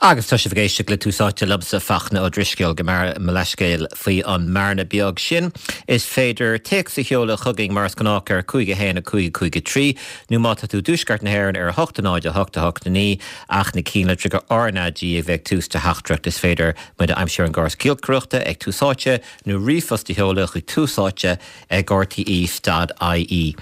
Agus tá sibh ag éisteacht le Tús Áite liomsa, Fachtna Ó Drisceoil, gabh mo leithscéal faoi an mbearna beag sin. Is féidir téacs a sheoladh chugainn mar is gnách ar 5 1 5 5 3 nó má tá tú i dtuaisceart na hÉireann ar 8 0 8 8 9 ach na cinnlitreacha RnaG a bheith ag tús do theachtaireacht. Is féidir muid a aimsiú ar an gcóras giolcaireachta ag Tús Áite nó ríomhphost a sheoladh chuig Tús Áite ag rte.ie.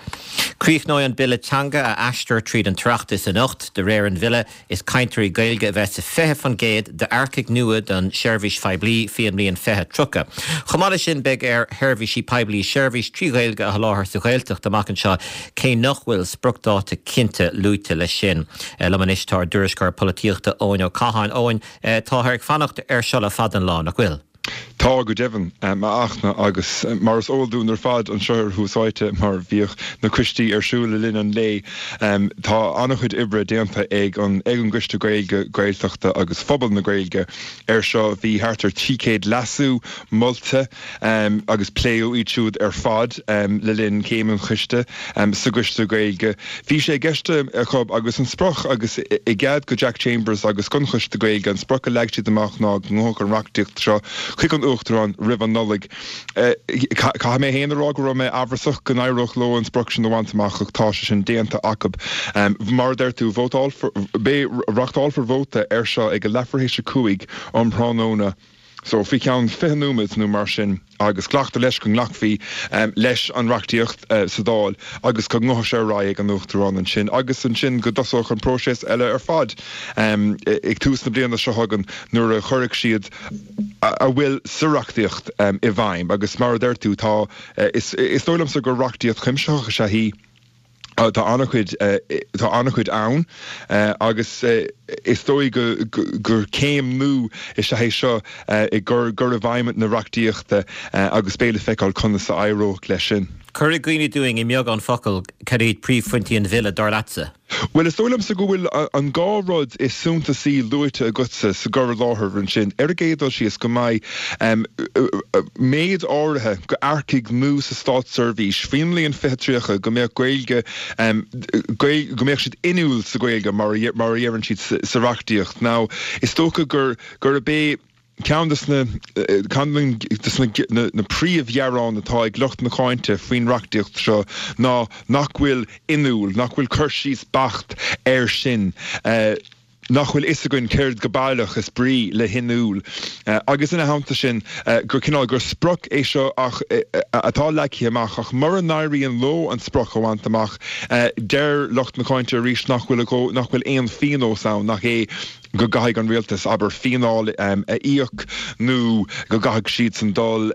Críochnóidh an Bille Teanga a aistear tríd an tOireachtas anocht. De réir an bhille, is cainteoirí Gaeilge a bheas sa 20% d'earcaigh nua don tseirbhís phoiblí faoi an mbliain 2030. Chomh maith leis sin, beidh ar sheirbhísí poiblí seirbhís 3 Ghaeilge a sholáthar sa Ghaeltacht amach anseo, cé nach bhfuil spriocdháta cinnte luaite leis sin. Liom anois tá ár dtuairisceoir polaitíochta Eoin Ó Catháin. Eoin, táthar ag fanacht air seo le fada an lá, nach bhfuil? Tá, go deimhin, a Fhachtna, agus mar is eol dúinn ar fad anseo ar Thús Áite, mar bhíodh na coistí ar siúl le linn an lae, tá an-chuid oibre déanta ag an ag an gCoiste Gaeilge, Gaeltachta agus Phobal na Gaeilge air seo. Bhí thart ar 300 leasú molta agus pléadh iad siúd ar fad le linn céim an choiste sa gCoiste Gaeilge. Bhí sé i gceist acu agus an sprioc agus i gcead go Jack Chambers agus gon Choiste Gaeilge an sprioc a leag siad amach ná go ngabhfadh an reachtaíocht seo chuig an Uachtarán roimh an Nollaig. Caithfidh mé féin a rá go raibh mé amhrasach go n-éireodh leo an sprioc sin a bhaint amach ach tá sé sin déanta acu. Mar a deir tú, vótálfar, beidh, reachtálfar vóta air seo ag a leathuair théis 5 um thráthnóna. So, faoi cheann 20 nóiméad nó mar sin, agus glactar leis go nglacfaí leis an reachtaíocht sa Dáil agus go ngabhfaidh sé ar aghaidh ag an Uachtarán ansin agus ansin go dtosódh an próiseas eile ar fad ag tús na bliana seo chugainn nuair a chuirfidh siad a bhfuil sa reachtaíocht i bhfeidhm. Agus mar a deir tú, tá, is dóigh liomsa gur reachtaíocht chuimsitheach is ea í. Tá an-chuid, tá an-chuid ann agus is dóigh gur céim nua is ea é seo i gcur i bhfeidhm na reachtaíochta agus beidh le feiceáil conas a éireoidh leis sin. Cuir i gcuimhne dúinn i mbeagán focal cad iad príomhphointí an bhille, dar leatsa? Bhuel, is dóigh liomsa go bhfuil an dá rud is suntasaí luaite agatsa sa gcur i láthair ansin. Ar an gcéad dul síos, go mbeidh méid áirithe d'earcaigh nua sa státseirbhís faoin mbliain 2030 go mbeadh Gaeilge, go mbeadh siad inniúil sa Ghaeilge mar a dheireann siad sa reachtaíocht. Now, is dócha gur gurb é ceann de na ceann de na príomhghearáin atá ag lucht na cáinte faoin reachtaíocht seo ná nach bhfuil inniúil, nach bhfuil cur síos beacht air sin. Nach bhfuil fhios againn céard go baileach is brí le hinniúil. Agus ina theannta sin, gur cineál, gur sprioc é seo ach atá leagtha amach, ach mura n-éiríonn leo an sprioc a bhaint amach, deir lucht na cáinte arís nach bhfuil, nach bhfuil aon phíonós ann, nach é go gcaithfidh an rialtas, abair, fíneáil a íoc nó go gcaithfidh siadsan dul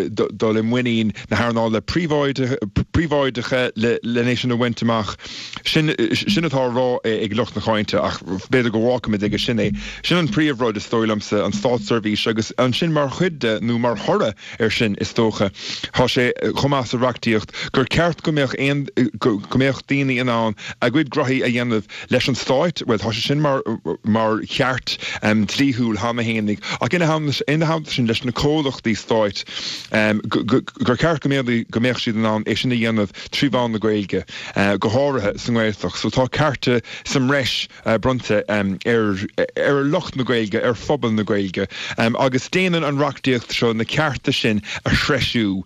dul i muinín na hearnála príobháideacha len é sin a bhaint amach. Sin sin atá á rá ag lucht na cáinte ach b'fhéidir go bhfágfaimid aige sin é. Sin an príomhrud is dóigh liomsa, an státseirbhís agus ansin mar chuid de nó mar thoradh air sin is dócha, tá sé chomh maith sa reachtaíocht gur ceart go mbeadh aon go mbeadh daoine in ann a gcuid graithí a dhéanamh leis an stáit, bhuel tá sé sin mar mar cheart dlíthiúil cheana fhéinig ach ina ina theannta sin leis na comhlachtaí stáit gur ceart go mbeadh go mbeadh siad in ann é sin a dhéanamh trí mheán na Gaeilge, go háirithe sa nGaeltacht. So tá cearta sa mbreis bronnta ar ar lucht na Gaeilge, ar phobal na Gaeilge agus déanann an reachtaíocht seo na cearta sin a threisiú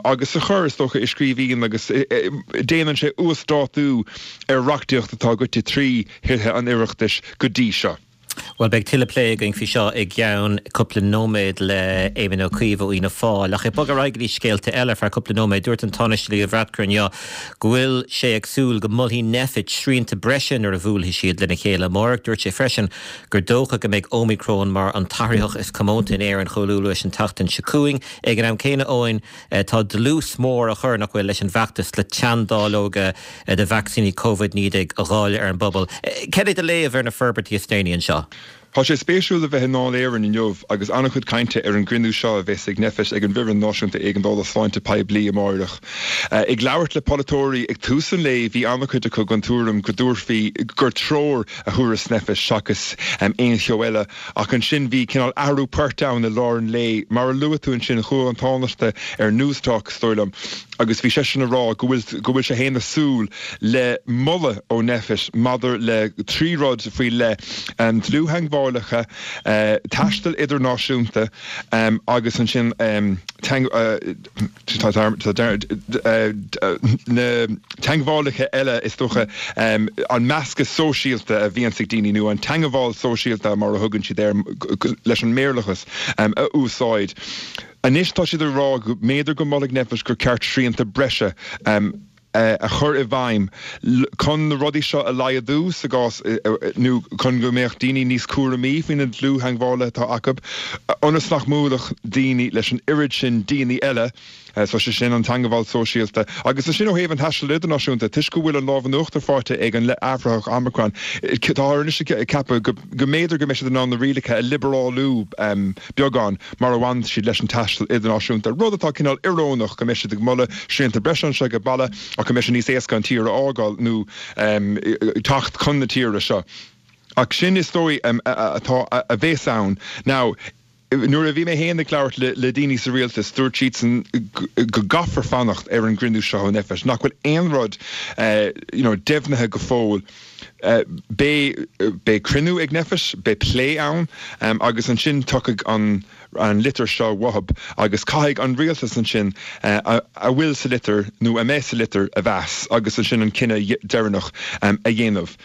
agus a chur, is dócha, i scríbhinn agus déanann sé uasdátú ar reachtaíocht atá goite trí Thithe an Oireachtais go dtí seo. Bhuel, beidh tuilleadh plé againn faoi seo i gceann cúpla nóiméad le Éamon Ó Cuív ó Fhianna Fáil. Ach ag bogadh ar aghaidh go dtí scéalta eile ar feadh cúpla nóiméad, dúirt an Tánaiste Leo Varadkar inniu go bhfuil sé ag súil go molfaidh Nphet srianta breise nuair a bhuailfidh siad lena chéile amárach. Dúirt sé freisin gur dócha go mbeidh Ómicron mar an t-athraitheach is comónta in Éirinn chomh luath leis an tseachtain seo chugainn. Ag an am céanna, Eoin, tá dlús mór á chur, nach bhfuil, leis an bhfeachtas le teanndáileoga de vacsaíní Covid-19 a dháileadh ar an bpobal. Cad é do léamh ar na forbairtí is déanaí anseo? Tá sé spéisiúil a bheith i nDáil Éireann inniu agus an-chuid cainte ar an gcruinniú seo a bheas ag Nphet ag an bhFoireann Náisiúnta Éigeandála Sláinte Poiblí amáireach. Ag labhairt le polaiteoirí ag tús an lae bhí an-chuid acu den tuairim go dtabharfaí, gur treoir a thabharfas Nphet seachas aon cheo eile. Ach ansin bhí cineál athrú poirt ann i lár an lae. Mar a luaigh tú ansin, chuaigh an Tánaiste ar Newstalk, is dóigh liom, agus bhí seisean ag rá go bhfuil, go bhfuil sé féin ag súil le moladh ó Nphet maidir le trí rud faoi leith, dlúth-theagmháil. dlúth-theangmhálacha, taisteal idirnáisiúnta agus ansin na teangmhálacha eile is dócha, an meascadh sóisialta a bhíonns ag daoine nó an teangmháil sóisialta mar a thugann siad air leis an mBéarlachas a úsáid. Anois tá siad ag rá go mb'fhéidir go molfaidh Nphet gur ceart srianta breise a chur i bhfeidhm chun na rudaí seo a laghdú sa gcás nó chun go mbeadh daoine níos cúramaí faoi na dlúth-theangmhálaithe atá acu ionas nach mbuailfeadh daoine leis an oiread sin daoine eile. So sé sin an teangmháil sóisialta. Agus ansin ó thaobh an taistil idirnáisiúnta, toisc go bhfuil an lámh in uachtar faighte ag an athraitheach Omicron, táthar anois ag ceapadh go mb'fhéidir go mbeidh siad in ann na rialacha a liobrálú beagán mar a bhaineann siad leis an taisteal idirnáisiúnta, rud atá cineál iorónach go mbeidh siad ag moladh srianta breise anseo ag baile ach go mbeidh sé níos éasca an tír a fhágáil nó teacht chun na tíre seo. Ach sin is dóigh atá a bheas ann. Now, nuair a bhí mé féin ag labhairt le daoine sa rialtas, dúirt siadsan go gcaithfear fanacht ar an gcruinniú seo ó Nphet, nach bhfuil aon rud you know deimhnithe go fóill. Beidh, beidh cruinniú ag Nphet, beidh plé ann agus ansin tiocfaidh an, an litir seo uathub agus caithfidh an rialtas ansin a bhfuil sa litir nó a mbeidh sa litir a mheas agus ansin an cinneadh deireanach a dhéanamh.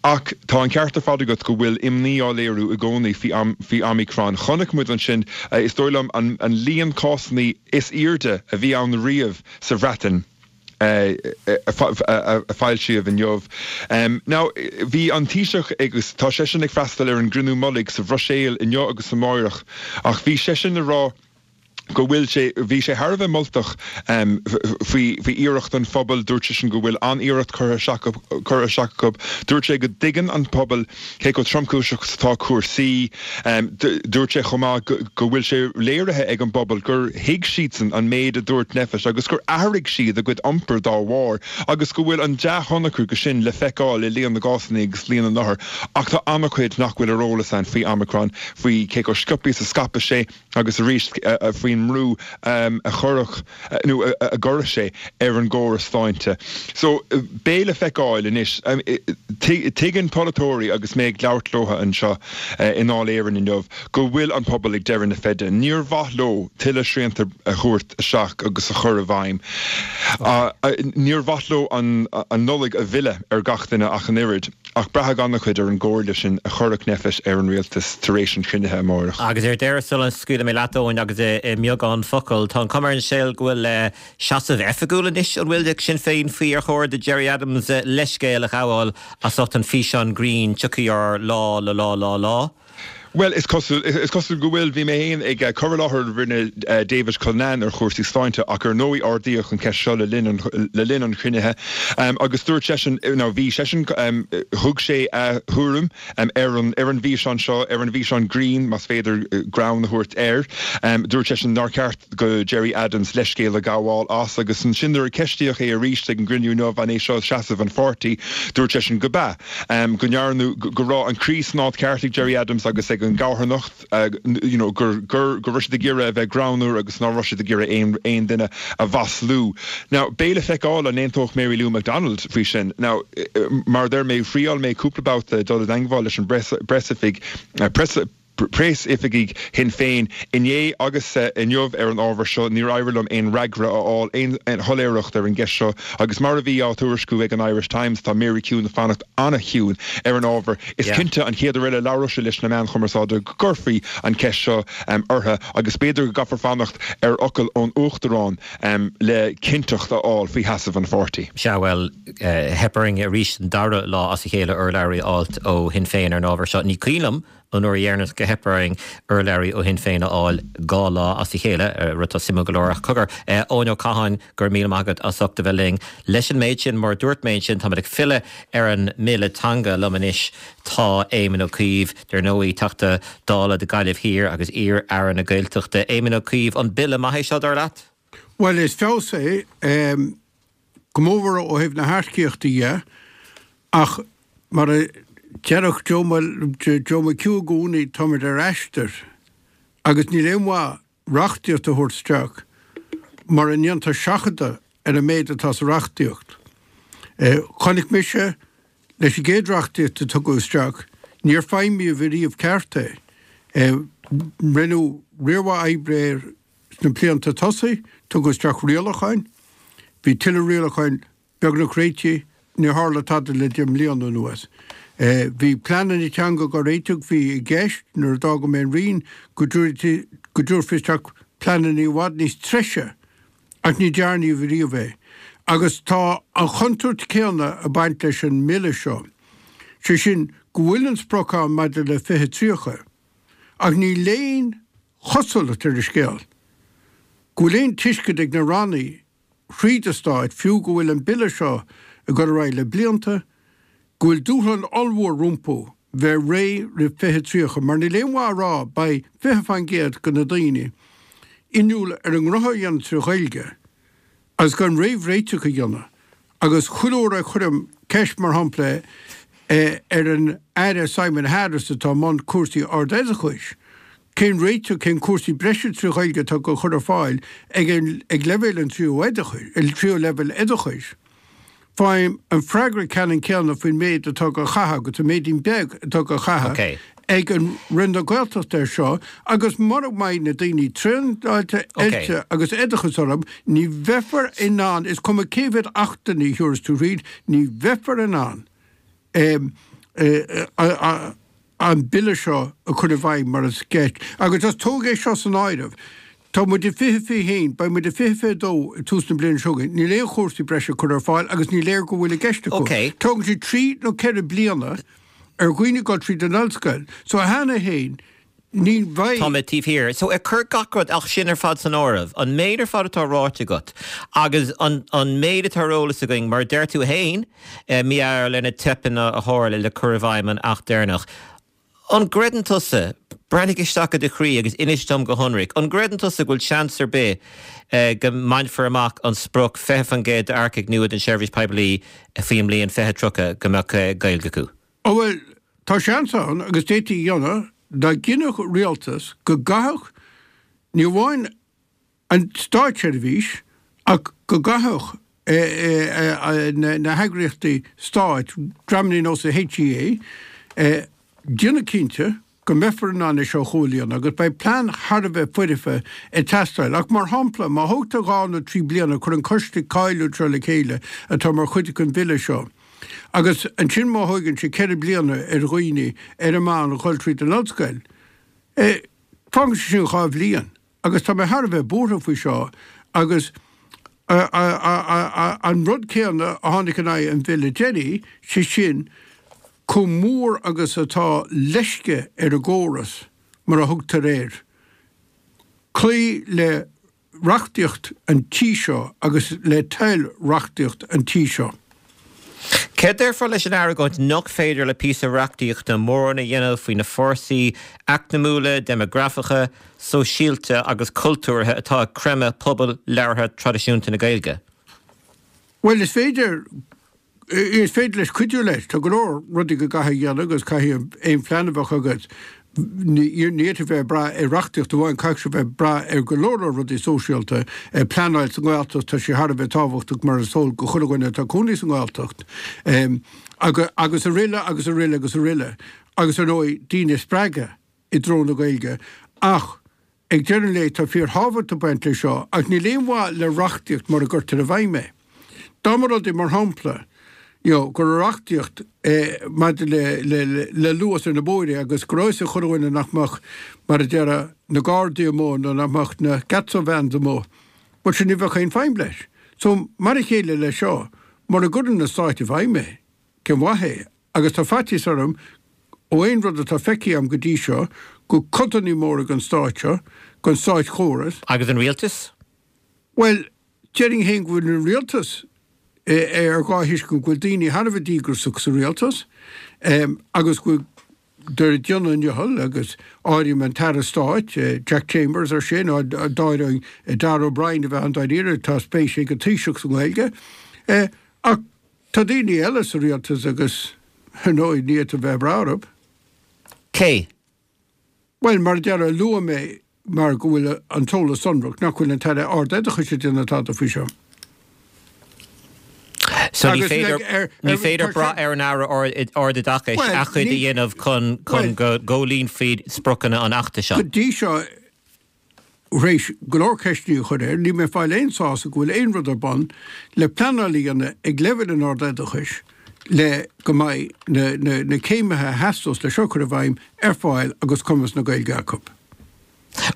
Ach tá an ceart ar fad agat go bhfuil imní á léiriú i gcónaí faoi Omicron. Chonaic muid ansin, is dóigh liom, an líon cásanna is airde a bhí ann riamh sa Bhreatain a foilsíodh inniu. Now, bhí an Taoiseach agus tá seisean ag freastal ar an gcruinniú mullaigh sa Bhruiséil inniu agus amáireach, ach bhí seisean ag rá, go bhfuil sé, bhí sé thar a bheith moltach faoi, faoi iarracht an phobail, dúirt seisean go bhfuil an-iarracht curtha isteach, curtha isteach acu. Dúirt sé go dtuigeann an pobal cé chomh tromchúiseach is atá cúrsaí. Dúirt sé chomh maith go, go bhfuil sé léirithe ag an bpobal gur thuig siadsan an méid a dúirt Nphet agus gur athraigh siad a gcuid iompair dá bharr agus go bhfuil an dea-thionchar de sin le feiceáil i líon na gcásanna agus líon na n-othar. Ach tá an-chuid nach bhfuil ar eolas ann faoi Omicron, faoi cé chomh sciobtha is a scaipeas sé. agus arís faoin mbrú a chuirfeadh nó a gcuirfeadh sé ar an gcóras sláinte. So, beidh le feiceáil anois. Tuigeann polaiteoirí, agus mé ag labhairt leo anseo i nDáil Éireann inniu, go bhfuil an pobal ag deireadh na feide. Níor mhaith leo tuilleadh srianta a thabhairt isteach agus a chur i bhfeidhm. Níor mhaith leo an Nollaig a mhilleadh ar gach duine ach an oiread. Ach braithfidh an-chuid ar an gcomhairle sin a chuirfeadh Nphet ar an rialtas tar éis an chruinnithe amárach. Agus ar deireadh, sula scaoilfidh mé leat, Eoin, agus i mbeagán focal, tá an chuma ar an scéal go bhfuil seasamh oifigiúil anois, an bhfuil, ag Sinn Féin faoi ar chóir do Gerry Adams leithscéal a ghabháil as ucht an físeán grinn 'Tiocfaidh ár lá lá lá lá lá'? Bhuel, is cosúil, is cosúil go bhfuil. Bhí mé féin ag cur i láthair a rinne David Cullinane ar chúrsaí sláinte ach ar ndóigh ardaíodh an cheist seo le linn an, le linn an chruinnithe agus dúirt seisean, nó bhí seisean, thug sé a thuairim ar an, ar an bhfíseán seo, ar an bhfíseán grinn, más féidir greann a thabhairt air. Dúirt seisean nár cheart do Gerry Adams leithscéal a ghabháil as agus ansin nuair a ceistíodh é arís ag an gcruinniú inniu an é seo seasamh an pháirtí, dúirt seisean go b'ea. go ndearnadh, go raibh an croí san áit ceart ag Gerry Adams agus ag an gcarthanacht, you know, gur, gur, go raibh siad ag iarraidh a bheith greannmhar agus ná raibh siad ag iarraidh aon, aon duine a mhaslú. Now, beidh le feiceáil an aontódh Mary Lou McDonald faoi sin. Now, mar a deir mé, thriáil mé cúpla babhta dul i dteangmháil leis an bpreasoifig, press, preasoifigigh Shinn Féin inné agus inniu ar an ábhar seo, níor éirigh liom aon fhreagra a fháil, aon shoiléireacht ar an gceist seo agus mar a bhí á tuairisciú ag an Irish Times, tá Mary Chiúin ag fanacht an-chiúin ar an ábhar. Is cinnte an chéad uair eile a labhróidh sí leis na meáin chumarsáide go gcuirfí an cheist seo uirthi agus b'fhéidir go gcaithfear fanacht ar fhocal ón Uachtarán le cinnteacht a fháil faoi sheasamh an pháirtí. Sea, bhuel, theip orainn arís an dara lá as a chéile urlabhraí a fháilt ó Shinn Féin ar an ábhar seo. Ní cuimhin liom an uair dheireanach gur theip orainn urlabhraí ó Shinn Féin a fháil 2 lá as a chéile, rud atá suimiúil go leor. Ach cogar, Eoin Ó Catháin, go raibh míle maith agat as ucht a bheith linn. Leis an méid sin, mar a dúirt mé ansin, táimid ag filleadh ar an mBille Teanga. Liom anois tá Éamon Ó Cuív, dar ndóigh, Teachta Dála do Ghaillimh Thiar agus iar-Aire na Gaeltachta. Éamon Ó Cuív, an bille maith é seo, dar leat? Bhuel, is feabhas é. Go mór mhór ó thaobh na hearcaíochta dhe, ach mar a déarfadh Joe McHugh i gcónaí, táimid ar aistear agus níl aon mhaith reachtaíocht a thabhairt isteach mura ndéantar seachadadh ar an méid atá sa reachtaíocht. Chonaic mise leis an gcéad reachtaíocht a tugadh isteach, Níor feidhmíodh ariamh ceart é. Rinneadh riar mhaith oibre air sna blianta tosaigh, tugadh isteach rialacháin, bhí tuilleadh rialacháin beagnach réitithe, níor tharla tada le 10 mbliana anuas. Bhí pleananna teanga á réiteach, bhí i gceist nuair a d'fhága mé an Roinn go dtabharfaí isteach pleananna i bhfad níos treise ach ní dearnadh riamh é. Agus tá an chontúirt céanna ag baint leis an mBille seo, sé sin go bhfuil an sprioc ann maidir le 2030 ach níl aon chosúlacht ar an scéal go bhfuil aon tuiscint ag na rannaí thríd an Stáit, fiú go bhfuil an Bille seo ag dul ar aghaidh le blianta, go bhfuil dúshlán ollmhór rompu bheith réidh roimh 2030, mar níl aon mhaith a rá beidh 20% de na daoine inniúil ar a ngnóthaí a dhéanamh trí Ghaeilge agus gan réamhréiteach a dhéanamh. Agus chuile uair a chuirim ceist, mar shampla, ar an Aire Simon Harris atá i mbun cúrsaí ardoideachais, cén réiteach, cén cúrsaí breise trí Ghaeilge atá á gcur ar fáil ag ag leibhéal an tríú oideachais, tríú leibhéal oideachais, faighim an freagra ceannann céanna faoin méid atá á chaitheamh agus an méidín beag atá á chaitheamh ag an Roinn na Gaeltachta air seo agus mura mbeidh na daoine traenáilte, oilte agus oideachas orthu, ní bheifear in ann, is cuma cé mhéad achtanna a thiúrfas tú thríd, ní bheifear in ann an Bille seo a chur i bhfeidhm mar is ceart. Agus just tóg é seo san áireamh, tá muid i 2021, beidh muid i 2022 ag tús na bliana seo chugainn, níl aon chúrsaí breise curtha ar fáil agus ní léir go bhfuil i gceist acu. Tógann sé trí nó ceithre bliana ar dhaoine dul tríd an ollscoil. So cheana féin, ní bheidh. Tá mé taobh thiar. So ag cur gach rud ach sin ar fad san áireamh, an méid ar fad atá ráite agat agus an an méid atá ar eolas againn, mar a deir tú fhéin, mar gheall ar na teipeanna a tharla le cur i bhfeidhm an Acht deireanach, an gcreideann tusa, breathnaigh isteach i do chroí agus inis dom go hionraic, an gcreideann tusa go bhfuil seans ar bith go mbainfear amach an sprioc 20% d'earcaigh nua don tseirbhís poiblí faoin mbliain 2030 go mbeadh Gaeilge acu? Ó bhuel, tá seans ann, agus d'fhéadfaí a dhéanamh, dá gcinnfeadh rialtas go gcaithfeadh, ní amháin an státseirbhís, ach go gcaithfeadh na heagraíochtaí stáit, dreamanna ar nós an HEA, déanamh cinnte go mbeifear in ann é seo a chomhlíonadh agus beidh plean thar a bheith foirfe ag teastáil. Ach mar shampla, má thógtar dhá nó trí bliana cur an coiste cáiliúil seo le chéile atá mar chuid den bhille seo, agus ansin má thóigeann sé ceithre bliana ar dhaoine ar an meán a dhul tríd an ollscoil, fágann sé sin dhá bhliain. Agus tá mé thar a bheith buartha faoi seo agus an rud céanna a tháinig in aghaidh an bhille deiridh, sé sin chomh mór agus atá leisce ar an gcóras, mar a thugtar air, cloí le reachtaíocht an tí seo agus le toil reachtaíocht an tí seo. Céard déarfá leis an argóint nach féidir le píosa reachtaíochta mórán a dhéanamh faoi na fórsaí eacnamúla, déimeagrafacha, sóisialta agus cultúrtha atá ag creimeadh pobal labhartha traidisiúnta na Gaeilge? Bhuel, is féidir. Is féidir leis cuidiú leis. Tá go leor rudaí go gcaithfidh a dhéanamh agus caithfidh aon phlean a bheadh agat, ní fhéadfaí bheith ag brath ar reachtaíocht amháin, caithfidh sé bheith ag brath ar go leor leor rudaí sóisialta. Pleanáil sa nGaeltacht, tá sé thar a bheith tábhachtach mar is eol do chuile dhuine atá ag cónaí sa nGaeltacht. Agus araile agus araile agus araile. Agus ar ndóigh, daoine a spreagadh i dtreo na Gaeilge. Ach Ag deireadh an lae, tá fíorthábhacht ag baint leis seo, ach níl aon mhaith le reachtaíocht mura gcuirtear i bhfeidhm é. Dá mba rud é, mar shampla, you know, go raibh reachtaíocht maidir le le luas ar na bóithre agus go raibh fhios ag chuile dhuine nach mbeadh, mar a déarfá, na Gardaí amuigh nó nach mbeadh na Gatso vans amuigh, bhuel sin ní bheadh aon feidhm leis. So, mar a chéile leis seo, mura gcuireann an Stát i bhfeidhm é, cén mhaith é? Agus tá faitíos orm, ó aon rud atá feicthe agam go dtí seo, go codanna móra den stát seo, den státchóras, Agus an rialtas? Bhuel, déarfainn féin go bhfuil an rialtas ar dhá thuiscint, go bhfuil daoine thar a bheith díograiseach sa rialtas agus go bhfuil ag déanamh a ndicheall agus áirím an tAire Stáit, Jack Chambers air sin, d'áireoinn Darragh O'Brien a bheith ann dáiríre, tá spéis ag an Taoiseach sa nGaeilge. Ach Tá daoine eile sa rialtas agus, ar ndóigh, ní fhéadfá bheith ag brath orthu. Cé? Bhuel, mar a déarfá, luaigh mé, mar go bhfuil an t-eolas sonrach, nach bhfuil an tAire Ard-Oideachais ag déanamh tada faoi seo. So ní féidir, ní féidir brath ar an Aire Ardoideachais a chuid a dhéanamh chun go gcomhlíonfaí spriocanna an Achta seo. Go dtí seo, tar éis go leor ceisteanna a chur air, níl mé ag fáil aon sásamh go bhfuil aon rud ar bun le pleanáil a dhéanamh ag leibhéal an ardoideachais le go mbeidh na céimithe a theastós le seo a chur i bhfeidhm ar fáil agus cumas na Gaeilge acu.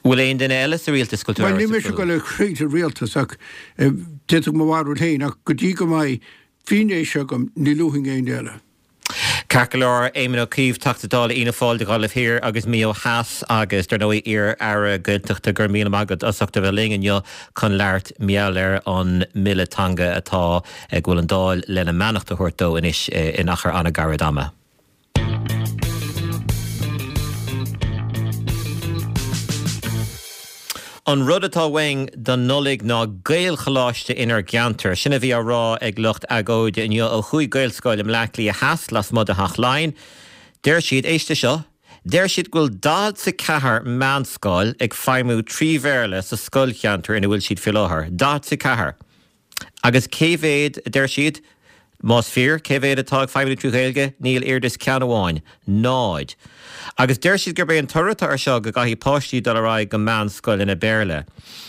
Bhfuil aon duine eile sa rialtas go bhfuil tú Bhuel, níl mise ag dul ag caint ar rialtas ach d'fhéadfadh mo bharúil féin ach go dtí go mbeidh fianaise agam ní luafainn éinne eile. Ceart go leor, Éamon Ó Cuív, Teachta Dála Fhianna Fáil do Ghaillimh Thiar agus Maigh Eo Theas agus, dar ndóigh, iar-Aire Gaeltachta, go raibh míle maith agat as ucht a bheith linn inniu chun labhairt mar gheall ar an mBille Teanga atá, go bhfuil an Dáil lena mbeannacht a thabhairt dó anois in achar an-ghairid ama. An rud atá uainn don Nollaig ná Gaelcholáiste inár gceantar. Sin a bhí á rá ag lucht agóide inniu ó chúig Ghaelscoil i mBleá Cliath Theas lasmuigh de Theach Laighean. Deir siad, éist leis seo, deir siad go bhfuil 44 meánscoil ag feidhmiú trí Bhéarla sa scoilcheantar ina bhfuil siad faoi láthair. 44! Agus cé mhéad, a deir siad, más fíor, cé mhéad atá ag feidhmiú trí Ghaeilge? Níl oiread is ceann amháin. Náid. Agus deir siad gurb é an toradh atá air seo go gcaithfidh páistí dul ar aghaidh go meánscoileanna Béarla.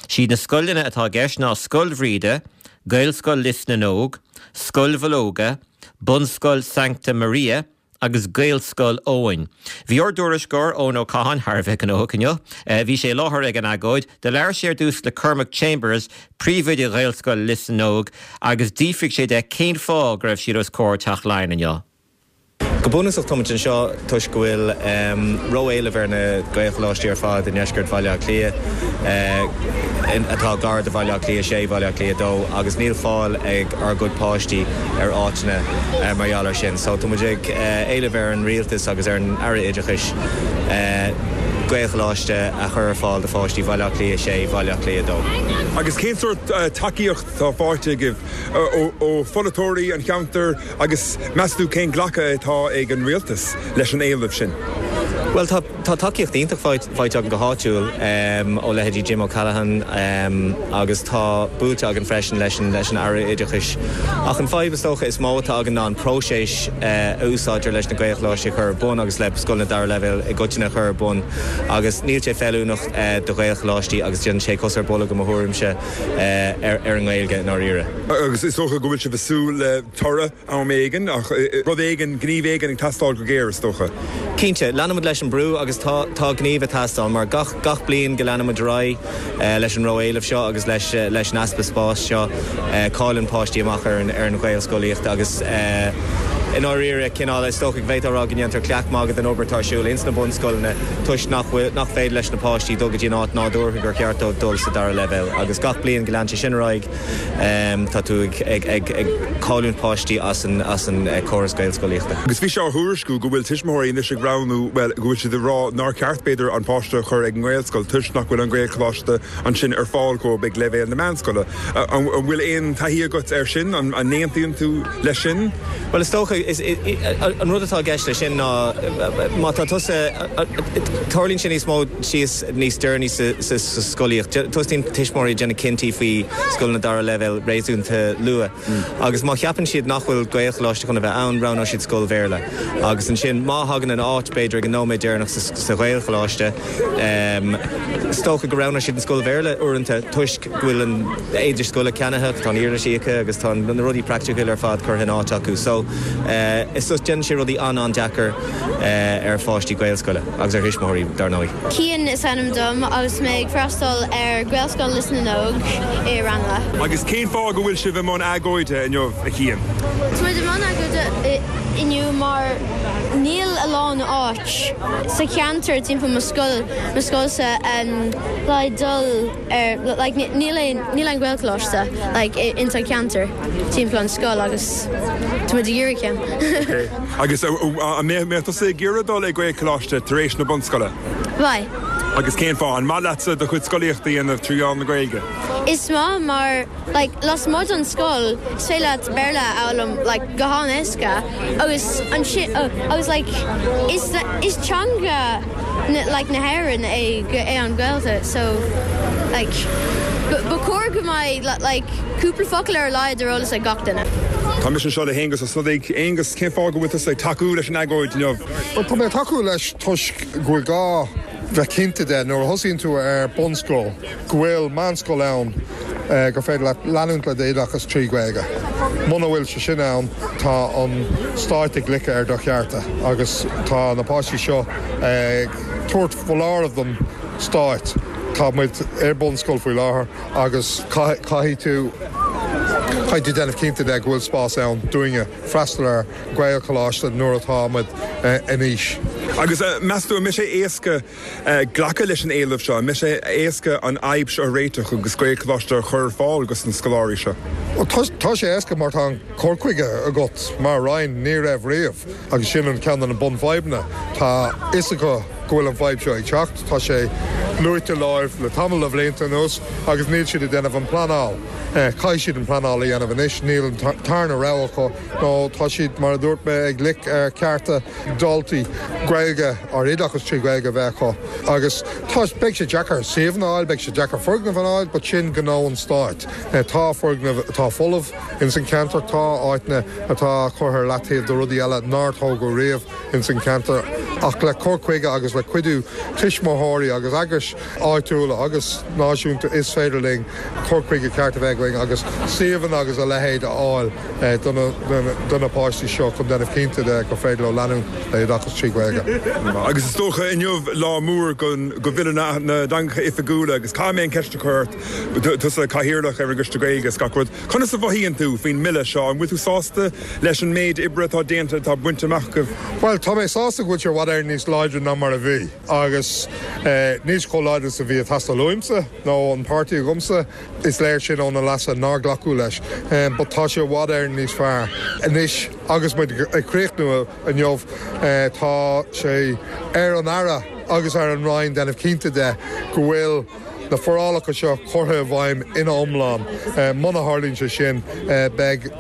Siad na scoileanna atá i gceist ná Scoil Bhríde, Gaelscoil Lios na nÓg, Scoil Mhológa, Bunscoil Sancta Maria, agus Gaelscoil Eoin. Bhí ár dtuairisceoir, Eoin Ó Catháin, thar a bheith gnóthach inniu. Bhí sé i láthair ag an agóid. Do labhair sé ar dtús le Cormac Chambers, príomhoide Ghaelscoil Lios na nÓg, agus d'fhiafraigh sé de cén fáth go raibh siad os comhair Teach Laighean inniu. Go bunúsach táimid anseo toisc go bhfuil ró-éileamh ar na Gaelcholáistí ar fad i ndeisceart Bhaile Átha Cliath, atá gar do Bhaile Átha Cliath 6, Baile Átha Cliath 2, agus níl fáil ag ár gcuid páistí ar áiteanna mar gheall air sin. So tá muid ag éileamh ar an Rialtas agus ar an Aire Oideachais Gaelcholáiste a chur ar fáil do pháistí Bhaile Átha Cliath 6, Bhaile Átha Cliath 2. Agus cén sórt tacaíocht atá faighte agaibh ó pholaiteoirí an cheantair agus meas tú cén glacadh atá ag an Rialtas leis an éileamh sin? Bhuel tá. Tá tacaíocht iontach faighte againn go háitiúil ó leithéidí Jim O'Callaghan agus tá buailte againn freisin leis an Aire Oideachais. Ach an fadhb is dócha is mó atá againn ná an próiseas a úsáidtear leis na Gaelcholáistí a chur ar bun agus le scoileanna dara leibhéal i gcoitinne a chur ar bun agus níl sé feiliúnach do Ghaelcholáistí agus déanann sé cos ar bolg i mo thuairimse ar an nGaeilge i ndáiríre. Agus is dócha go bhfuil sibh ag súil le toradh am éigin, ach rud éigin, gníomh éigin ag teastáil go géar, is dócha. Cinnte, leanfaimid leis an brú agus tá, tá gníomh ag teastáil mar gach, gach bliain go leanaimid ar aghaidh leis an ró-éileamh seo agus leis, leis an easpa spáis seo, cailleann páistí amach ar an, ar an Ghaelscolaíocht agus i ndáiríre, cineál, is dócha go bhféadfá a rá go ndéantar cleach magaidh den obair atá ar siúl ins na bunscoileanna toisc nach bhfuil, nach féidir leis na páistí dul go dtí an áit nádúrtha gur cheart dóibh dul sa dara leibhéal agus gach bliain go leanann sé sin ar aghaidh. Tá tú ag cailliúint páistí as an córas Gaelscolaíochta. Agus bhí sé á thuairisciú go bhfuil tuismitheoirí anois ag roghnú, bhuel, go bhfuil siad ag rá nár cheart, b'fhéidir, an páiste a chur ag an nGaelscoil toisc nach bhfuil an Gaelcholáiste ansin ar fáil dhóibh ag leibhéal na meánscoile. An bhfuil aon taithí agat air sin? An n-aontaíonn tú leis sin? Bhuel, is dócha, an rud atá i gceist leis sin ná má tá tusa, tarlaíonn sé níos mó síos níos deireanaí sa scolaíocht. Tosaíonn tuismitheoirí ag déanamh cinntí faoi scoileanna dara leibhéal réasúnta luath agus má cheapann siad nach bhfuil Gaelcholáiste chun a bheith ann, roghnóidh siad scoil Bhéarla. Agus ansin má thagann an áit, b'fhéidir, ag an nóiméad deireanach sa Ghaelcholáiste, is dócha go roghnóidh siad an scoil Bhéarla uaireanta toisc go bhfuil an éide scoile ceannaithe, tá an uirlis íoctha agus tá na rudaí praiticiúil ar fad curtha in áit acu. So, is déanann sé rudaí an-an-deacair ar pháistí Gaelscoile agus ar thuismitheoirí, dar ndóigh. Cian is ainm dom agus mé ag freastal ar Ghaelscoil Lios na nÓg i Raghnallach. Agus cén fáth go bhfuil sibh i mbun agóide inniu, a Chian? Tá muid i mbun agóide inniu mar níl a lán áit sa cheantar timpeall mo scoil, mo scoilsa le dul ar like níl aon níl aon Ghaelcholáiste like ins an cheantar timpeall an scoil agus tá muid ag iarraidh ceann. Ok. Agus an mbeadh tusa ag iarraidh dul ag Gaelcholáiste tar éis na bunscoile? Bheadh. Agus cén fáth? An maith leatsa do chuid scolaíochta a dhéanamh trí mheán na Gaeilge? Is maith mar like lasmuigh den scoil is féidir leat Béarla a fhoghlaim like go han-éasca agus ansin agus like is is teanga na like na hÉireann é é an Ghaeilge so like ba chóir go mbeidh like cúpla focal ar a laghad ar eolas ag gach duine. Tá mise anseo le hAonghus Ó Snodaigh. Aonghus, cén fáth go bhfuil tusa ag tacú leis an agóid inniu? Bhuel, tá mé ag tacú leis toisc go bhfuil gá bheith cinnte de nuair a thosaíonn tú ar bunscoil go bhfuil meánscoil ann gur féidir leat leanúint le d'oideachas trí Ghaeilge. Muna bhfuil sé sin ann, tá an stáit ag loiceadh ar do chearta agus tá na páistí seo ag tabhairt foláireamh don stáit. Tá muid ar bunscoil faoi láthair agus caithfidh tú caithfidh tú déanamh cinnte de go bhfuil spás ann dúinne freastal ar Ghaelcholáiste nuair atá muid in aois. Agus meas tú an mbeidh sé éasca glacadh leis an éileamh seo? An mbeidh sé éasca an fhadhb seo a réiteach agus Gaelcholáiste a chur ar fáil dos na scoláirí seo? Tá sé éasca mar tá an cur chuige agat mar Roinn, ní raibh riamh agus sin an ceann de na bunfhadhbanna. Tá fhios acu go bhfuil an fhadhb seo ag teacht, tá sé luaite leo le tamall de bhlianta anuas agus níl siad ag déanamh an pleanáil. Caithfidh siad an pleanáil a dhéanamh anois, níl an tarna rogha acu nó tá siad, mar a dúirt mé, ag loic ar chearta daltaí Gaeilge ar oideachas trí Ghaeilge a bheith acu agus tá, beidh sé deacair suíomhanna a fháil, beidh sé deacair foirgnimh a fháil but sin gnó an stáit. Tá foirgnimh atá folamh ins an cheantar, tá áiteanna atá curtha ar leataobh do rudaí eile nár tógadh riamh ins an cheantar ach le cur chuige agus le cuidiú tuismitheoirí agus eagrais áitiúla agus náisiúnta is féidir linn cur chuige ceart a bheith againn agus suíomhanna agus a leithéid a fháil do na páistí seo chun déanamh cinnte de gur féidir leo leanúint le hoideachas trí Ghaeilge. Agus is dócha inniu lá mór do Bhille na dTeangacha Oifigiúla agus caithfidh mé an ceist a chur ort, tusa Cathaoirleach ar an gCoiste Gaeilge is gach rud, conas a mhothaíonn tú faoin mBille seo? An bhfuil tú sásta leis an méid oibre atá déanta, atá bainte amach agaibh? Bhuel, tá mé sásta go bhfuil sé i bhfad Éireann níos láidre ná mar a bhí agus níl sé chomh láidir is a bhí ag teastáil uaimse nó an páirtí agamsa, is léir sin ó na leasuithe nár glacadh leis. But tá sé i bhfad Éireann níos fearr anois agus muid ag críochnú inniu. Tá sé ar an Aire agus ar an Roinn déanamh cinnte de go bhfuil na forálacha seo curtha i bhfeidhm ina iomlán. Muna tharlaíonn sé sin, beidh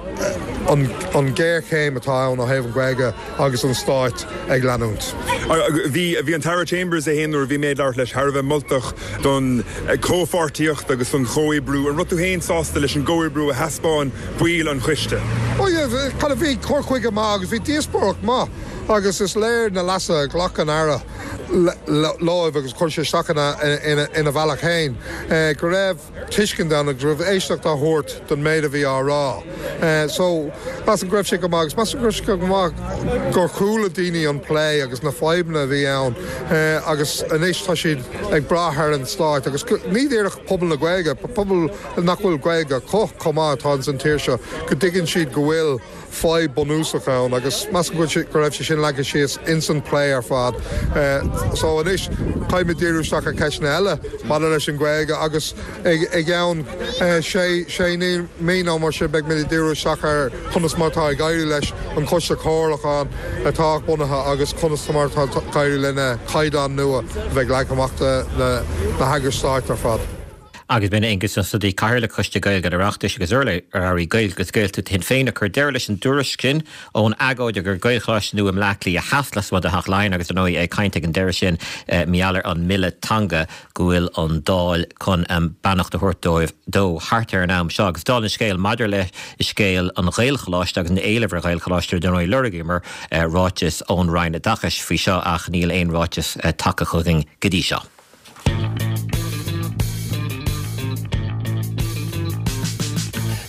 an ghéarchéim atá ann ó thaobh an Ghaeilge agus an stáit ag leanúint. Bhí bhí an tAire Chambers é féin nuair a bhí mé ag labhairt leis thar a bheith moltach don chomhpháirtíocht agus don chomhoibriú. An raibh tú féin sásta leis an gcomhoibriú a thaispeáin baill an choiste? Oh yeah, kind of bhí cur chuige maith agus bhí díospóireacht maith agus is léir na leasuithe a ghlac an Aire leo agus chuir sé isteach ina bhealach féin go raibh tuiscint ann agus go raibh éisteacht á thabhairt don méid a bhí á rá. So, measaim go raibh sé go maith agus measaim go raibh sé go maith gur chuala daoine an plé agus na fadhbanna a bhí ann agus anois tá siad ag brath ar an stáit agus ní díreach pobal na Gaeilge, pobal nach bhfuil Gaeilge acu chomh maith atá ins an tír seo, go dtuigeann siad go bhfuil fadhb bunúsach ann agus measaim go go raibh sé sin leagtha síos ins an plé ar fad. So anois caithfidh muid díriú isteach ar cheisteanna eile maidir leis an Ghaeilge agus i gceann sé sé mí nó mar sin beidh muid ag díriú isteach ar conas mar atá ag éirí leis an Choiste Comhairliúcháin atá bunaithe agus conas mar atá ag éirí lena caighdeáin nua a bheidh leagtha amach do na heagrais stáit ar fad. Agus b'in Aengus Ó Snodaigh, Cathaoirleach Choiste Gaeilge an Oireachtais agus urlabhraí Gaeilge agus Gaeltachta Shinn Féin, ag cur deireadh leis an dtuairisc sin ón agóid ar Ghaelcholáiste nua i mBleá Cliath Theas lasmuigh de Theach Laighean agus ar ndóigh é ag caint ag an deireadh sin mar gheall ar an mBille Teanga go bhfuil an Dáil chun beannacht a thabhairt dóibh dó thart ar an am seo. Agus dála an scéil maidir le scéal an Ghaelcholáiste agus an éilimh ar Ghaelcholáiste ar ndóigh lorgaíomar ráiteas ón Roinn Oideachais faoi seo ach níl aon ráiteas tagtha chugainn go dtí seo.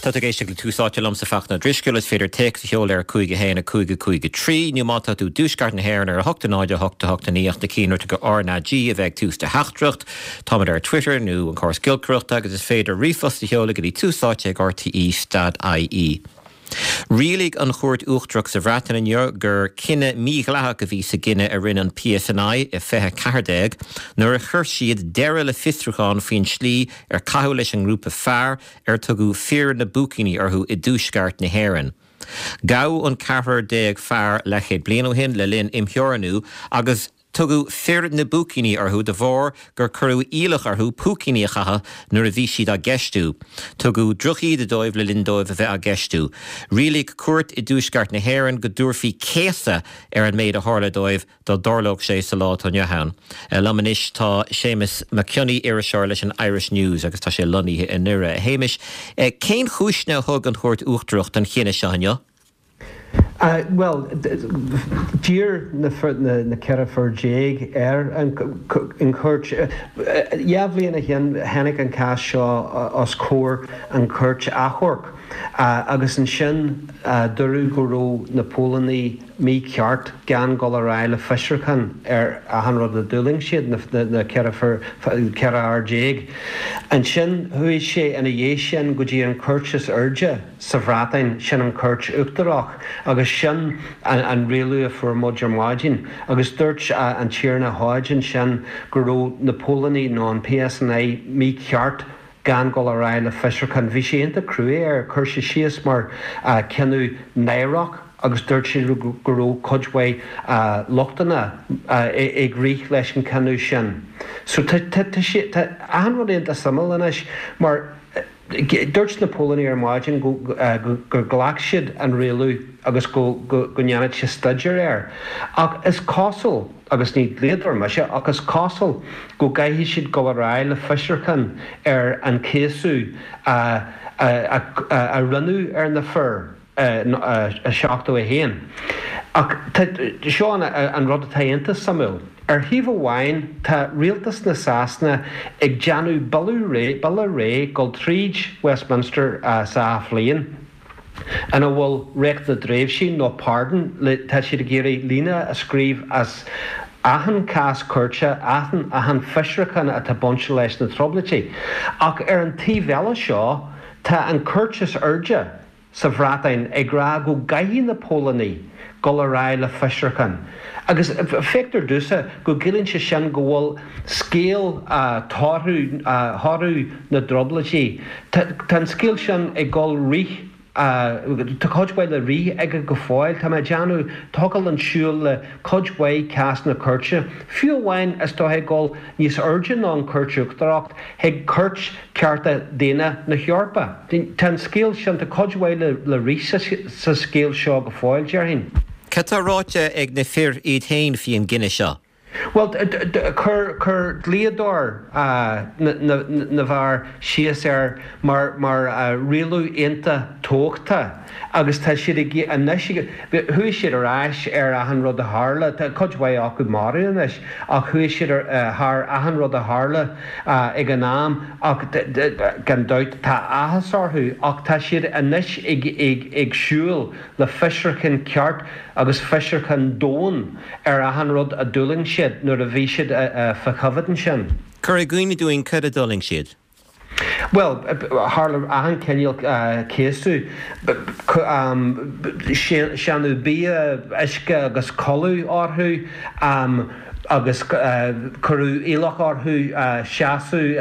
Tá tú ag éisteacht le Tús Áite liomsa Fachtna Ó Drisceoil. Is féidir téacs a sheoladh ar 5 1 5 5 3 nó má tá tú i dtuaisceart na hÉireann ar 8 0 8 8 9 ach na cinnte RnaG a bheith ag tús do theachtaireacht. Táimid ar Twitter nó an córas giolcaireachta agus is féidir ríomhphost a sheoladh go dtí túsáite ag rte stad ie. Rialaigh an Chúirt Uachtarach sa Bhreatain inniu gur cinneadh mídhleathach a bhí sa gcinneadh a rinne an PSNI i 2014 nuair a chuir siad deireadh le fiosrúchán faoin tslí ar caitheadh leis an ngrúpa fear ar tugadh 'Fir na bPúicíní' orthu i dtuaisceart na hÉireann. Gabhadh an ceathrar déag fear leathchéad bliain ó shin le linn imtheorannú agus. Tugadh fir na bpúicíní orthu de bharr gur cuireadh iallach orthu púicíní a chaitheamh nuair a bhí siad á gceistiú. Tugadh drochíde dóibh le linn dóibh a bheith á gceistiú. Rialaigh cúirt i dtuaisceart na hÉireann go dtabharfaí céasadh ar an méid a tharla dóibh dá dtarlódh sé sa lá atá inniu ann. Liom anois tá Séamus Mac Cionnaith, iriseoir leis an Irish News agus tá sé lonnaithe i nDoire. A Shéamais, cén chúiseanna a thug an Chúirt Uachtarach don chinneadh seo inniu? Bhuel, d'iarr na 14 fear ar an chúirt. Dhá bhliain ó shin tháinig an cás seo os comhair an chúirt achomhairc agus ansin dúradh go raibh na póilíní mícheart gan dul ar aghaidh le fiosrúchán ar achan rud a d'fhulaing siad, na 14 fear. Ansin chuaigh sé ina dhiaidh sin go dtí an chúirt is airde. sa Bhreatain, sin an Chúirt Uachtarach agus sin an rialú a fuair muid ar maidin. Agus dúirt an Tiarna Hodge ansin go raibh na póilíní nó an PSNI mícheart gan dul ar aghaidh le fiosrúchán. Bhí sé iontach cruaidh air, chuir sé síos mar cinneadh náireach agus dúirt sé go raibh cuid mhaith lochtanna ag rith leis an cinneadh sin. So tá tá achan rud iontach suimiúil anois mar. Dúirt na póilíní ar maidin gur ghlac siad an rialú agus go ndéanfaidh siad staidéar air. Ach is cosúil, agus ní dlíodóir mise, ach is cosúil go gcaithfidh siad dul ar aghaidh le fiosrúchán ar an céasadh a rinneadh ar na fir. 71. Ach seo an rud atá iontach suimiúil. Ar thaobh amháin tá rialtas na Sasana ag déanamh bille réidh dul tríd Westminster sa athbhliain ina bhfuil Reacht na dTréimhsí nó pardon, tá siad ag iarraidh líne a scríobh as achan cás cúirte, achan fiosrúchán atá bainte leis na Trioblóidí. Ach ar an taobh eile seo tá an cúirt is airde, sa Bhreatain ag rá go gcaithfidh na póilíní dul ar aghaidh le fiosrúchán agus feictear domhsa go gciallaíonn sé sin go bhfuil scéal thoradh thoradh na dTrioblóidí, tá an scéal sin ag dul rith, tá cuid mhaith le rith aige go fóill. Tá mé ag déanamh, thiocfadh linn siúl le cuid mhaith cásanna cúirte, fiú amháin is dóigh ag dul níos airde ná an Chúirt Uachtarach, chuig Cúirt Cearta Daonna na hEorpa. Tá an scéal sin, tá cuid mhaith le rith sa scéal seo go fóill, déarfainn. Cad tá ráite ag na fir iad féin faoi an gcinneadh seo? Bhuel, chuir dlíodóir na bhfear síos air mar rialú iontach tábhachtach agus tá siad ag anois, chuaigh siad ar ais ar achan rud a tharla, tá cuid mhaith acu marbh anois ach chuaigh siad thar achan rud a tharla ag an am ach gan dabht tá áthas orthu ach tá siad anois ag siúl le fiosrúchán ceart agus fiosrúchán domhain ar achan rud a d'fhulaing siad nuair a bhí siad fá choimhéad ansin. Cuir i gcuimhne dúinn cad a d'fhulaing siad. Bhuel, tharla achan chineál céasadh, séanadh bia, uisce agus codladh orthu agus cuireadh iallach orthu seasamh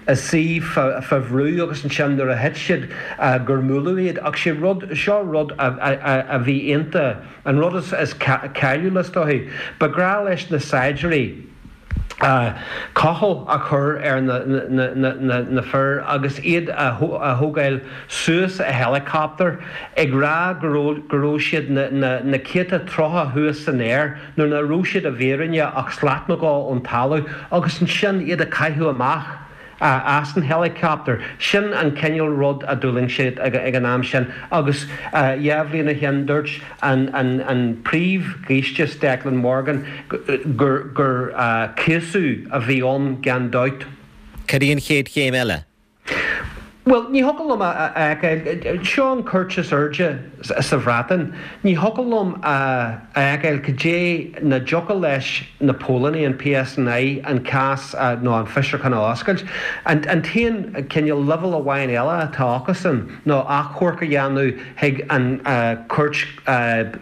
i suí fá bhrú agus ansin nuair a thit siad gur mbuaileadh iad. Ach sé rud, seo rud a bhí iontach, an rud is cáiliúla is dóichí, ba ghnách leis na saighdiúirí, cochall a chur ar na fir agus iad a thógáil suas i helicopter ag rá go raibh siad na céadta troithe thuas san aer nuair nach raibh siad i bhfírinne ach slat nó dhó ón talamh agus ansin iad a chaitheamh amach. as an helicopter. Sin an cineál rud a d'fhulaing siad ag an am sin agus dhá bhliain ó shin dúirt an Príomh-Ghiúistís Declan Morgan gur céasadh a bhí ann gan dabht. Cad í an chéad chéim eile? Bhuel, ní thiocfadh liom a fheiceáil, seo an cúirt is airde sa Bhreatain, ní thiocfadh liom a fheiceáil cad é nach dtiocfadh leis na póilíní, an PSNI, an cás nó an fiosrúchán a oscailt. An t-aon cineál leibhéal amháin eile atá acusan ná achomharc a dhéanamh chuig an Cúirt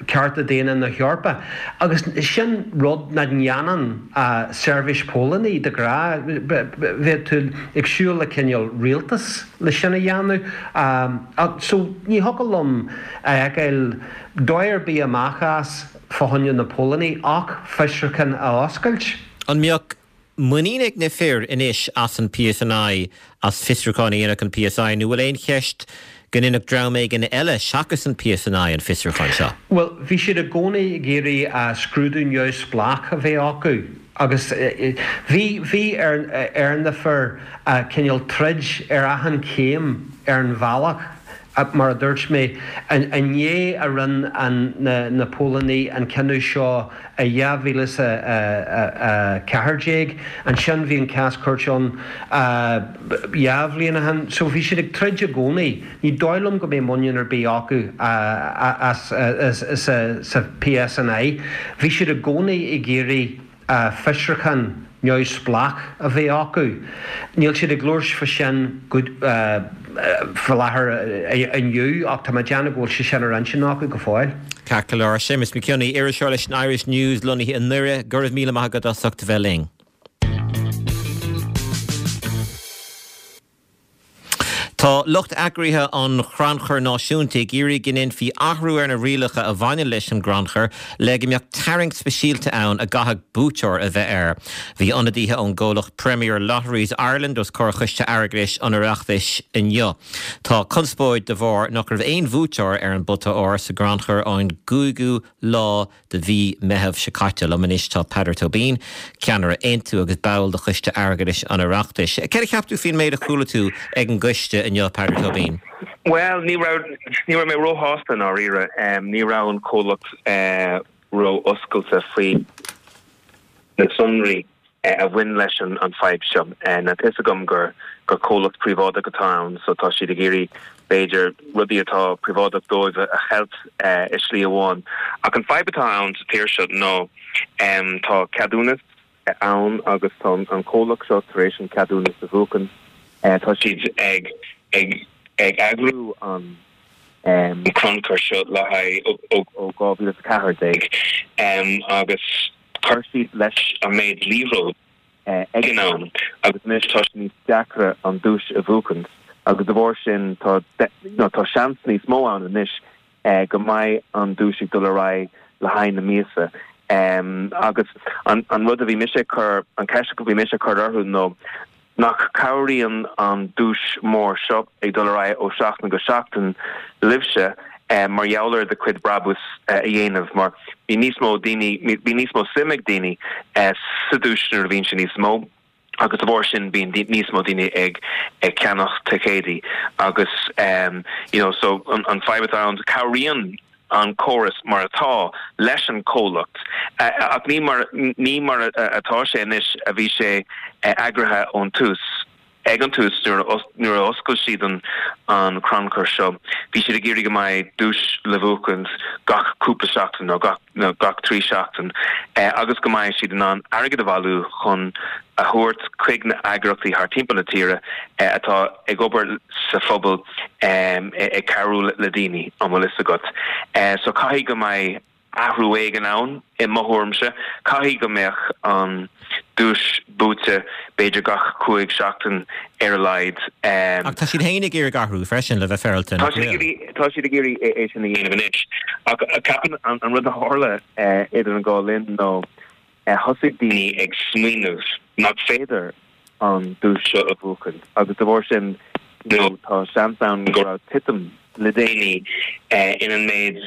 Cearta Daonna na hEorpa agus sin rud nach ndéanann seirbhís póilíní de ghnáth. Bheadh tú ag siúl le cineál rialtas. le sin a dhéanamh. So ní thiocfadh liom a fheiceáil dóigh ar bith amach as fá choinne na póilíní ach fiosrúchán a oscailt. An mbeadh muinín ag na fir anois as an PSNI as fiosrúchán a dhéanfadh an PSI nó bhfuil aon cheist go ndéanfadh dream éigin eile seachas an PSNI an fiosrúchán seo? Bhuel, bhí siad i gcónaí ag iarraidh scrúdú neamhspleách a bheith acu agus bhí, bhí ar, ar na fir cineál troid ar achan chéim ar an bhealach. Mar a dúirt mé, i ndiaidh a rinne na póilíní an cinneadh seo i 2014, ansin bhí an cás cúirte ann 2 bhliain ó shin, so bhí siad ag troid i gcónaí. Ní dóigh liom go mbeidh muinín ar bith acu as sa PSNI. Bhí siad i gcónaí ag iarraidh. fiosrúchán neamhspleách a bheith acu. Níl siad ag labhairt fá sin faoi láthair inniu ach tá mé ag déanamh go bhfuil sé sin ar intinn acu go fóill. Ceart go leor. Séamus Mac Cionnaith, iriseoir leis an Irish News lonnaithe i nDoire, go raibh míle maith agat as ucht a bheith linn. Tá lucht eagraithe an Chrannchuir Náisiúnta ag iarraidh go ndéanfaí athrú ar na rialacha a bhaineann leis an gcrannchur le go mbeadh tarraingt speisialta ann a gcaithfeadh buaiteoir a bheith air. Bhí ionadaithe ón gcomhlacht Premier Lotteries Ireland os comhair Choiste Airgeadais an Oireachtais inniu. Tá conspóid de bharr nach raibh aon bhuaiteoir ar an bpota óir sa gcrannchur ón gcúigiú lá de mhí Meitheamh seo caite. Liom anois tá Peadar Tóibín, ceannaire Aontú agus ball de Choiste Airgeadais an Oireachtais. Céard a cheap tú faoin méid a chuala tú ag an gcoiste inniu, Peadar Tóibín? Bhuel, ní raibh, ní raibh mé róshásta i ndáiríre. Ní raibh an comhlacht ró-oscailte faoi na sonraí. a bhain leis an fadhb seo. Now tá fhios agam gur gur comhlacht príobháideach atá ann so tá siad ag iarraidh b'fhéidir rudaí atá príobháideach dóibh a cheilt i slí amháin. Ach an fadhb atá ann sa tír seo ná tá ceadúnas ann agus tá an comhlacht seo tar éis an ceadúnas a bhuachan. Tá siad ag ag ag eagrú an crannchur seo le haghaidh ó 2014 agus Chuir siad leis an méid liathróid ag an am agus anois tá sé níos deacra an duais a bhuachaint agus de bharr sin tá tá seans níos mó ann anois go mbeidh an duais ag dul ar aghaidh le haghaidh na míosa. Agus an rud a bhí mise ag cur, an ceist a bhí mise ag cur orthu nó Nach cabhraíonn an duais mór seo ag dul ar aghaidh ó seachtain go seachtain libhse mar gheall ar do chuid brabús a dhéanamh mar bíonn níos mó daoine, bíonn níos mó suim ag daoine sa duais nuair a bhíonn sé níos mó agus de bharr sin bíonn níos mó daoine ag ceannach ticéidí agus you know so an fadhb atá ann cabhraíonn an córas mar atá leis an comhlacht ach ní mar ní mar atá sé anois a bhí sé eagraithe ón tús. Ag an tús nuair a nuair a oscail siad an an crannchur seo bhí siad ag iarraidh go mbeidh duais le bhuachaint gach cúpla seachtain nó gach nó gach 3 seachtain agus go mbeidh siad in ann airgead a bhailiú chun a thabhairt chuig na eagraíochtaí thar timpeall na tíre atá ag obair sa phobal ag cabhrú le daoine, an bhfuil fhios agat. So caithfidh go mbeidh athrú éigin ann, i mo thuairimse. Caithfidh go mbeadh an duais buaite b'fhéidir gach 5 seachtain ar a laghad. Ach tá siad féin ag iarraidh athrú freisin, le bheith féaráilte, nach bhfuil? Tá siad ag iarraidh é sin a dhéanamh anois. Ach ceapaim an rud a tharla idir an dhá linn ná thosaigh daoine ag smaoineamh nach féidir an duais seo a bhuachan agus de bharr sin you know tá seans ann go raibh titim le déanaí in an méid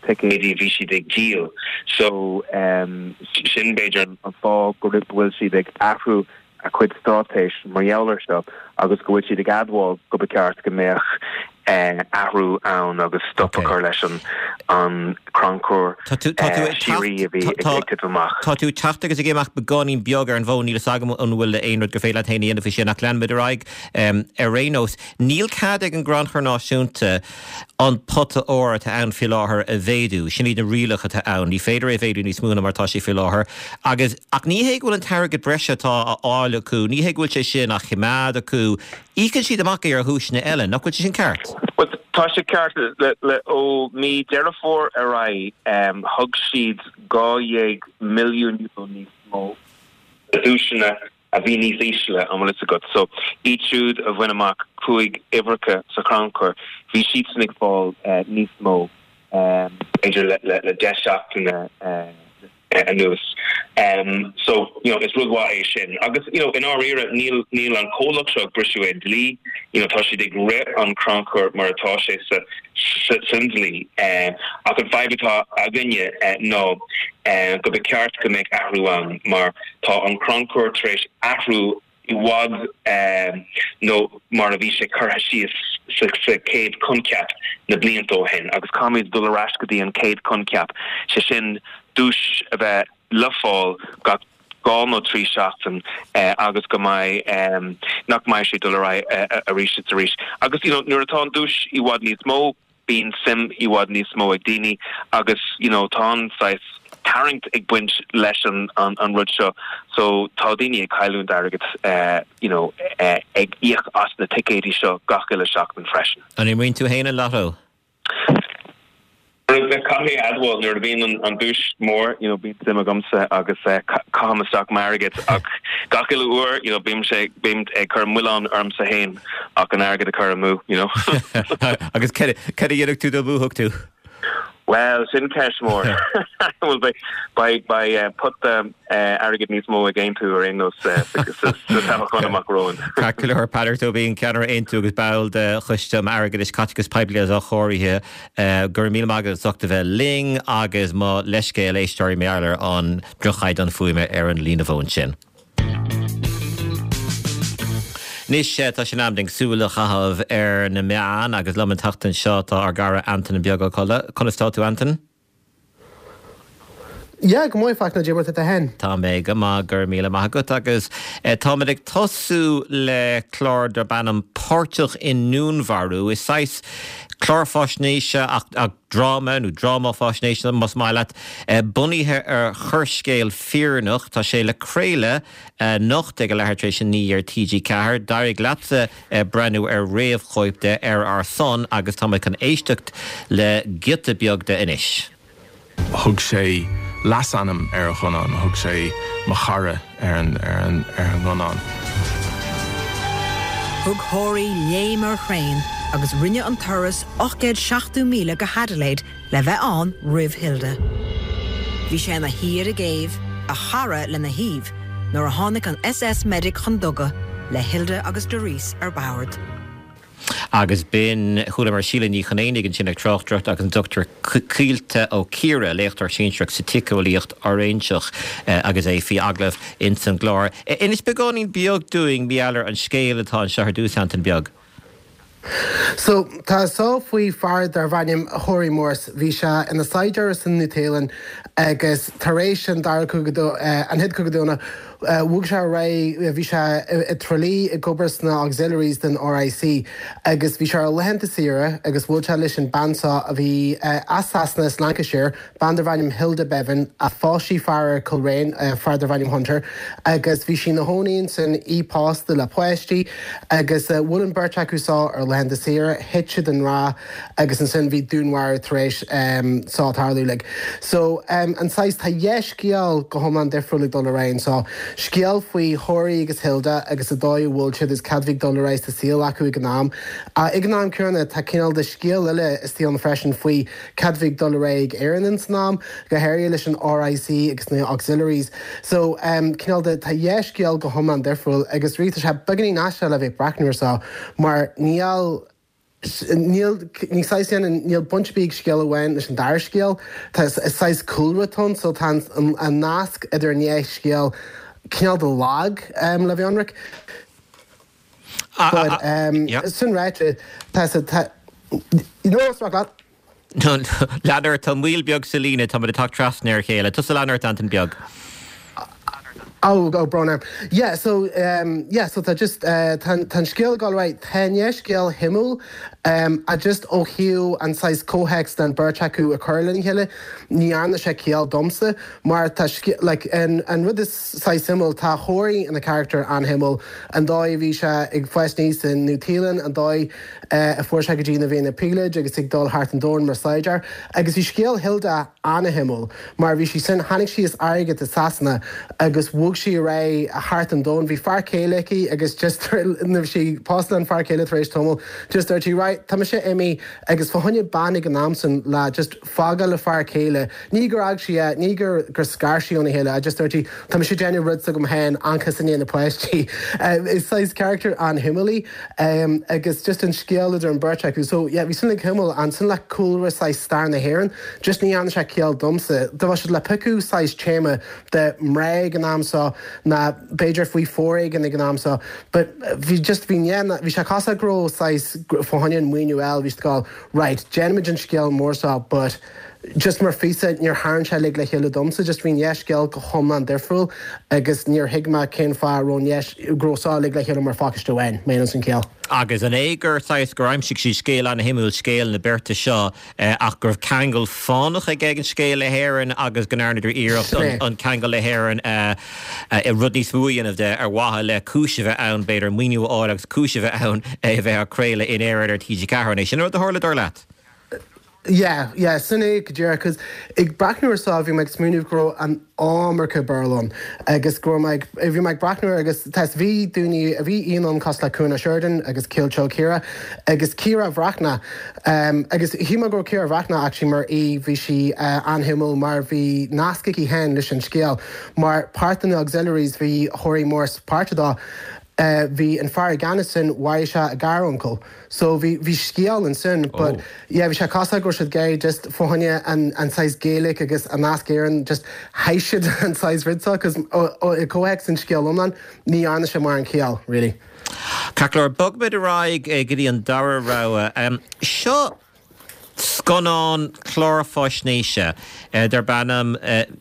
ticéidí a bhí siad ag díol so sin b'fhéidir an fáth go bhfuil siad ag athrú a cuid straitéis mar gheall air seo agus go bhfuil siad ag admháil go ba cheart go mbeadh athrú ann agus stop a chur leis an crannchur síoraí a bhí ag titim amach. Tá tú ag teacht agus ag imeacht beagáinín beag ar an bhfón, níl fhios agam an bhfuil aon rud gur féidir leat féin a dhéanamh faoi sin ach leanfaimid ar aghaidh ar aon nós. Níl cead ag an gCrannchur Náisiúnta an pota óir atá ann faoi láthair a mhéadú. Sin iad na rialacha atá ann. Ní féidir é a mhéadú níos mó ná mar atá sé faoi láthair. Agus, ach ní hé go bhfuil an t-airgead breise atá á fháil acu, ní hé go bhfuil sé sin á choimeád acu. Íocann siad amach é ar dhuaiseanna eile. Nach bhfuil sé sin ceart? Bhuel, tá sé ceart. Le, le, ó mí Deireadh Fómhair ar aghaidh, thug siad €12 milliún níos mó do dhuaiseanna. a bhí níos ísle, an bhfuil fhios agat. So, iad siúd a bhain amach 5 uimhreacha sa chrannchur, bhí siadsan ag fáil níos mó, b'fhéidir le 10 seachtaine anuas. So, you know, is rud mhaith é sin. Agus, you know, i ndáiríre, níl, níl an comhlacht seo ag briseadh aon dlí, you know, tá siad ag rith an crannchur mar atá sé sa, sa, san dlí. Ach an fadhb atá againne ná go ba cheart go mbeadh athrú ann mar tá an crannchur tar éis athrú i bhfad nó mar a bhí sé curtha síos sa chéad choincheap na blianta ó shin agus caithfimid dul ar ais go dtí an chéad choincheap, sé sin duais a bheith le fáil gach 2 nó 3 seachtain agus go mbeidh, nach mbeidh sé ag dul ar aghaidh arís is arís. Agus you know nuair atá an duais i bhfad níos mó, bíonn suim i bhfad níos mó ag daoine agus you know tá an saghas tarraingt ag baint leis an an rud seo so tá daoine ag cailliúint airgead you know ag íoc as na ticéidí seo gach uile seachtain freisin. An imríonn tú féin an lotto? Caithfidh mé a admháil nuair a bhíonn an duais mór you know bíonn suim agamsa agus caithim isteach m'airgead ach gach uile uair you know bímse bím ag cur milleán ormsa féin ach an airgead a chur amú, you know. Agus cad a dhéanfadh tú dá mbuafadh tú? Bhuel, sin ceist mhór. Bhuel, beidh, beidh pota airgid níos mó ag Aontú ar aon nós sa toghchán amach romhainn. Ceart go leor, Peadar Tóibín, ceannaire Aontú agus ball de Choiste um Airgeadais, Caiteachas Poiblí agus Athchóirithe, go raibh míle maith agat as ucht a bheith linn agus mo leithscéal éisteoirí mar gheall ar an droch-chaighdeán fuaime ar an líne fóin sin. Anois tá sé in am dúinn súil a chaitheamh ar na meáin agus liom an tseachtain seo tá ár gcara Antain Beag Ó Colla. Conas tá tú Antain? Yeah, go maith Fachtna, cad é mar tá tú féin. Tá mé go maith, go raibh míle maith agat agus táimid ag tosú le clár darb ainm Páirteach i nDúnmharú. Is saghas clár faisnéise ach dráma, nó dráma faisnéise más maith leat, bunaithe ar choirscéal fírinneach. Tá sé le craoladh anocht ag a leathuair tar éis a 9 ar TG4. D'éirigh leatsa breathnú ar réamhchóip de ar ár son agus táimid chun éisteacht le giota beag de anois. Thug sé leasainm ar a ghunnán, thug sé 'mo chara' ar an ngunnán. Thug Horey léim ar thraein agus rinne an turas 870 míle go hAdelaide le bheith ann roimh Hilda. Bhí sé ina shuí ar an gcéibh, a chara lena thaobh, nuair a tháinig an SS Medic chun duga le Hilda agus Doris ar bord. Agus b'in, chualamar Síle Ní Chonaonaigh ansin ag tráchtaireacht agus an Dr Caoilte Ó Ciardha, léachtóir sinsearach sa tsíceolaíocht fhoiréinseach agus é faoi agallamh ins an gclár. Inis beagáinín beag dúinn, mar gheall ar an scéal atá anseo ar dtús, Antain Beag. So, tá seo faoi fear darbh ainm Horey Morse. Bhí sé ina saighdiúir san Nua-Shéalainn agus tar éis an Dara Cogadh, an Chéad Chogadh Domhanda, Bhog sé ar aghaidh, bhí sé i dTrá Lí ag obair sna Auxiliaries den RIC agus bhí sé ar laethanta saoire agus bhuail sé leis an bean seo a bhí as Sasana, as Lancashire, bean darbh ainm Hilda Bevan, a phós sí fear ar Coleraine, fear darbh ainm Hunter, agus bhí sí ina chónaí ansin, í pósta le páistí agus bhuail an beirt acu seo ar laethanta saoire, thit siad i ngrá. agus ansin bhí dúnmharú tar éis seo tarlú like. So an saghas, tá dhá scéal go hiomlán difriúil ag dul ar aghaidh anseo. Scéal faoi Horey agus Hilda agus an dóigh a bhfuil siad agus cad bhí ag dul ar aghaidh sa saol acu ag an am. Ag an am céanna tá cineál de scéal eile istigh ann freisin faoi cad bhí ag dul ar aghaidh ag Éirinn ins an am, go háirithe leis an RIC agus na Auxiliaries. So cineál de, tá dhá scéal go hiomlán difriúil agus really tá sé beagáinín aisteach le bheith ag breathnú ar seo mar níl Níl, ní saghas dhéanann, níl baint ar bith ag scéal amháin leis an dara scéal. Tá, is saghas cúlra atá ann, so tá an, an nasc idir an dhá scéal cineál de lag, le bheith ionraic. But, sin ráite, tá, tá, you know, is maith leat. Lean ort, tá moill beag sa líne, táimid ag teacht trasna ar a chéile. Tusa lean ort, Antain Beag. Oh, oh, brón orm. Yeah, so, um, yeah, so tá just, uh, tá, tá an scéal ag dul ar aghaidh, tá an dhá scéal shuimiúil, um, ach just ó thaobh an saghas comhthéacs den beirt acu a chur lena chéile, ní dhearna sé ciall domsa, mar tá scéal, like, an, an rud is saghas suimiúil, tá Horey ina charachtar an-shuimiúil, an dóigh a bhí sé ag fás aníos i Nua-Shéalainn, an dóigh, a fuair sé go dtí ina bhí ina phíolóid agus ag dul thart an domhan mar saighdiúir. Agus bhí scéal Hilda an-shuimiúil mar bhí sí sin, tháinig sí as airgead i Sasana agus bhog. bhog sí ar aghaidh thart an domhan. Bhí fear céile aici agus just nuair bhí sí pósta lena fear céile tar éis tamaill just dúirt sí right tá mise imithe agus fá choinne bean ag an am san le just fágáil a fear céile, ní gur fhág sí é, ní gur gur scar sí óna chéile, just dúirt sí tá mise ag déanamh rud s'agam féin seachas i ndiaidh na páistí. Is saghas character an-shuimiúil í agus just an scéal idir an beirt acu. So yeah bhí sin like shuimiúil ansin le cúlra saghas stair na hÉireann just ní dhearna sé ciall domsa. Dá mbeadh siad le piocadh saghas téama de mná ag an am seo ná b'fhéidir faoi foréigean ag an am seo but bhí just bhí bhí sé cosúil go raibh saghas fá choinne an maoiniú a fháil bhí siad ag gabháil Right, déanfaimid an scéal mór seo but just mar phíosa níor tharraing sé uilig le chéile domsa, just bhí an dhá scéal go hiomlán difriúil agus níor thuig mé cén fáth a raibh an dhá, go raibh seo uilig le chéile mar phacáiste amháin, má dhéanann sin ciall. Agus an é gur saghas, gur aimsigh siad scéal an-shuimiúil, scéal na beirte seo, ach go raibh ceangal fánach ag an scéal le hÉirinn agus go ndearnadar iarracht an ceangal le hÉirinn a, rud níos mó a dhéanamh de ar mhaithe le cúis a bheith ann, b'fhéidir, maoiniú a fháil agus cúis a bheith ann é a bheith á chraoladh in Éirinn ar TG4. An é sin an rud a tharla, dar leat? Yeah, yeah, sin é go díreach, 'cause ag breathnú ar seo bhí mé ag smaoineamh go raibh an iomarca Béarla ann agus go raibh mé ag, bhí mé ag breathnú air agus tá, bhí daoine, bhí aíonna ann cosúil le Cuan Ó Seireadáin agus Caoilte Ó Ciardha agus Ciara Bhreathnach agus shíl mé go raibh Ciara Bhreathnach actually mar aoi, bhí sí an-shuimiúil mar bhí nasc aici féin leis an scéal. Mar páirt de na Auxiliaries bhí Horry Morse páirteach dó. Bhí an fear i gceannas sin, mharaigh sé a ghar-uncail. So bhí, bhí scéal ansin but yeah bhí sé cosúil go raibh siad ag iarraidh just fá choinne an, an saghas Gaeilge agus an nasc Éireann just chaith siad an saghas rud seo cos i gcomhthéacs an scéal iomlán ní dhearna sé mórán ciall really. Ceart go leor, bogfaimid ar aghaidh go dtí an dara rogha. Seo Scannán clár faisnéise darb ainm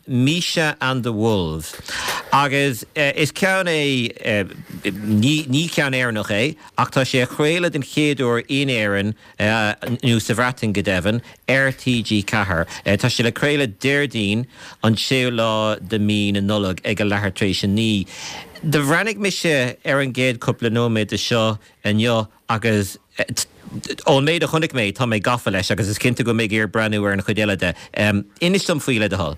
Misha and the Wolves agus is ceann é, ní ceann Éireannach é, ach tá sé á chraoladh den chéad uair in Éirinn, nó sa Bhreatain go deimhin, ar TG4. Tá sé le craoladh Déardaoin an séú lá de mí na Nollag ag a leathuair tar éis a 9. Do bhreathnaigh mise ar an gcéad cúpla nóiméad de seo inniu Agus ón méid a chonaic mé, tá mé gafa leis agus is cinnte go mbeidh mé ag iarraidh breathnú ar an chuid eile de. Inis dom faoi, le do thoil.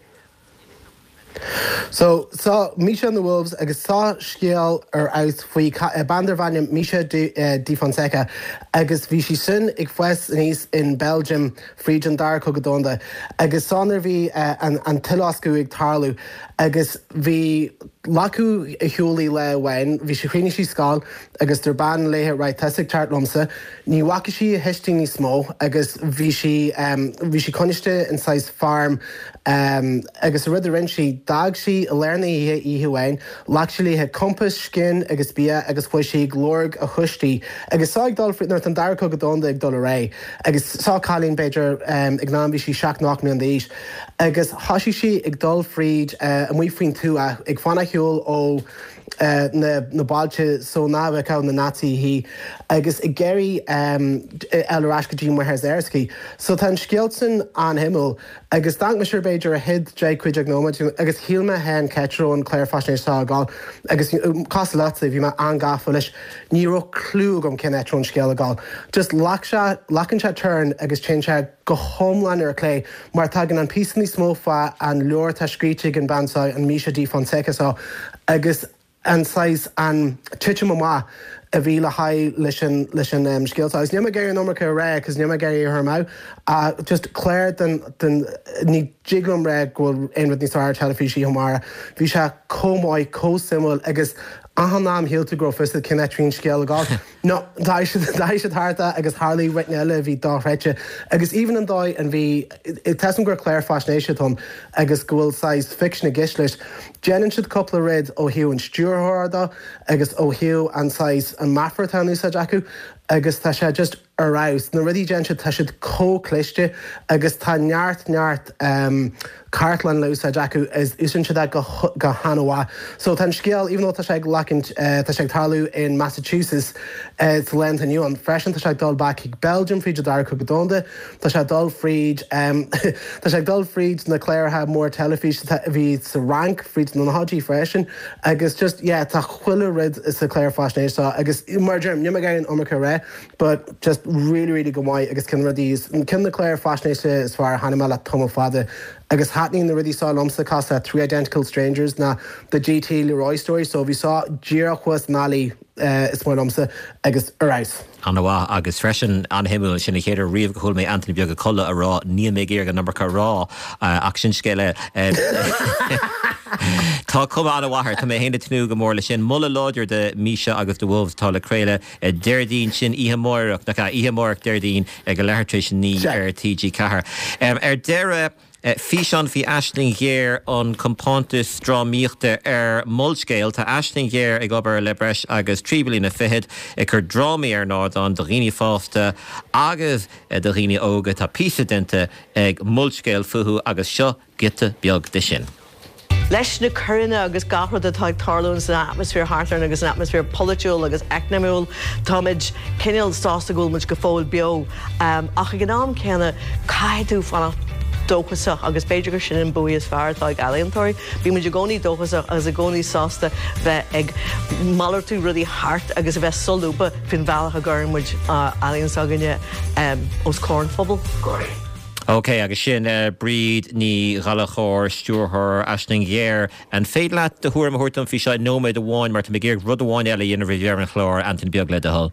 So, seo Misha and the Wolves agus seo scéal ar fheabhas faoi bean darbh ainm Misha de Fonseca agus bhí sí sin ag fás aníos in Belgium fríd an Dara Cogadh Domhanda agus seo nuair a bhí an tUileloscadh ag tarlú agus bhí glacadh ar shiúl í lá amháin, bhí sí, chríochnaigh sí scoil agus dúirt bean léithe right tusa ag teacht liomsa. Ní bhfaca sí a thuistí níos mó agus bhí sí bhí sí coinniste in saghas farm agus an rud a rinne sí d'fhág sí i lár na hoíche oíche amháin, ghlac sí léithe compás, scian agus bia agus chuaigh sí ag lorg a thuistí agus seo ag dul nuair atá an Dara Cogadh Domhanda ag dul ar aghaidh agus seo cailín b'fhéidir ag an am bhí sí seacht nó ocht mbliana d'aois agus thosaigh sí ag dul fríd amuigh faoin tuath ag fanacht ar shiúl ó na bailte so nach bhfeicfeadh na Naitsithe í agus ag iarraidh dul ar ais go dtí máthair s'aici. So tá an scéal sin an-shuimiúil agus d'amharc mise ar b'fhéidir an chéad 10, 15 nóiméad agus shíl mé féin cá háit a raibh an clár faisnéise seo ag dul agus cosúil leatsa bhí mé an-gafa leis. Ní raibh clue agam cén áit a raibh an scéal ag dul. Just ghlac sé, glacann sé turn agus téann sé go hiomlán ar clé mar tagann an píosa níos mó fá an leabhar atá scríte ag an bean seo, an Misha de Fonseca seo, agus an saghas, an titim amach a bhí le haghaidh leis an, leis an scéal seo. Agus níl mé ag iarraidh an iomarca a rá cos níl mé ag iarraidh é a chur amú ach just clár den, den, ní dtig liom rá go bhfuil aon rud níos fearr ar teilifís oíche amárach. Bhí sé chomh maith, chomh suimiúil agus achan am shíl tú go raibh fios agat cén áit a bhí an scéal ag dul. No, d'athraigh siad, d'athraigh siad thart é agus tharlaigh rud eile a bhí dochreidte. Agus even an dóigh an bhí, tá 'fhios a'm gur clár faisnéise atá ann agus go bhfuil saghas fiction i gceist leis, déanann siad cúpla rud ó thaobh an stiúrthóra de agus ó thaobh an saghas, an meafar atá in úsáid acu agus tá sé just ar fheabhas. Na rudaí a déanann siad, tá siad chomh cliste agus tá neart, neart cartlann le úsáid acu is úsáideann siad é go han-mhaith. So tá an scéal, even though tá sé ag lacaint, tá sé ag tarlú in Massachusetts sa lá atá inniu ann freisin, tá sé ag dul back chuig Belgium fríd an Dara Cogadh Domhanda, tá sé ag dul fríd, tá sé ag dul fríd na cláracha mór teilifíse a bhí sa Fhrainc fríd na nóchaidí freisin agus just yeah tá chuile rud sa chlár faisnéise seo agus mar a deirim, níl mé ag iarraidh an iomarca a rá but just really really go maith agus ceann de na rudaí, ceann de na cláir faisnéise is fearr a chonaic mé le tamall fada. Agus thaitníonn na rudaí seo liomsa cosúil le Three Identical Strangers ná The JT Leroy Story so bhí seo díreach thuas an alley is maith liomsa agus ar fheabhas. An-mhaith agus freisin an-shuimiúil sin an chéad uair riamh go chuala mé Antaine Beag Ó Colla ag rá níl mé ag iarraidh an iomarca a rá ach sin scéal eile. Tá cuma an-mhaith air, tá mé féin ag tnúth go mór leis sin. Moladh láidir do Misha agus The Wolves atá le craoladh Déardaoin sin oíche amárach, nach ea? Oíche amárach Déardaoin ag a leathuair tar éis a 9 ar TG4. Ar deireadh, físeán faoi Aisling Ghéar, an compántas drámaíochta ar Molscéal. Tá Aisling Ghéar ag obair le breis agus 3 bliana fichead ag cur drámaí ar an ardán do dhaoine fásta agus do dhaoine óga. Tá píosa déanta ag Molscéal fúthu agus seo giota beag de sin. Leis na coireanna agus gach rud atá ag tarlúint san atmaisféar thart orainn agus an atmaisféar polaitiúil agus eacnamúil, táimid cineál sásta go bhfuil muid go fóill beo. Ach ag an am céanna, caithfidh tú fanacht dóchasach agus b'fhéidir gur sin an bua is fearr atá ag ealaíontóirí. Bíonn muid i gcónaí dóchasach agus i gcónaí sásta bheith ag malartú rudaí thart agus a bheith solúbtha faoin bhealach a gcuireann muid ealaíon s'againne os comhair an phobail. Ok, agus sin Bríd Ní Ghallchóir, stiúrthóir Aisling Ghéar. An féidir leat do thuairim a thabhairt dom faoi seo i nóiméad amháin mar tá mé ag iarraidh rud amháin eile a dhéanamh roimh dheireadh an chláir, Antaine Beag, le do thoil.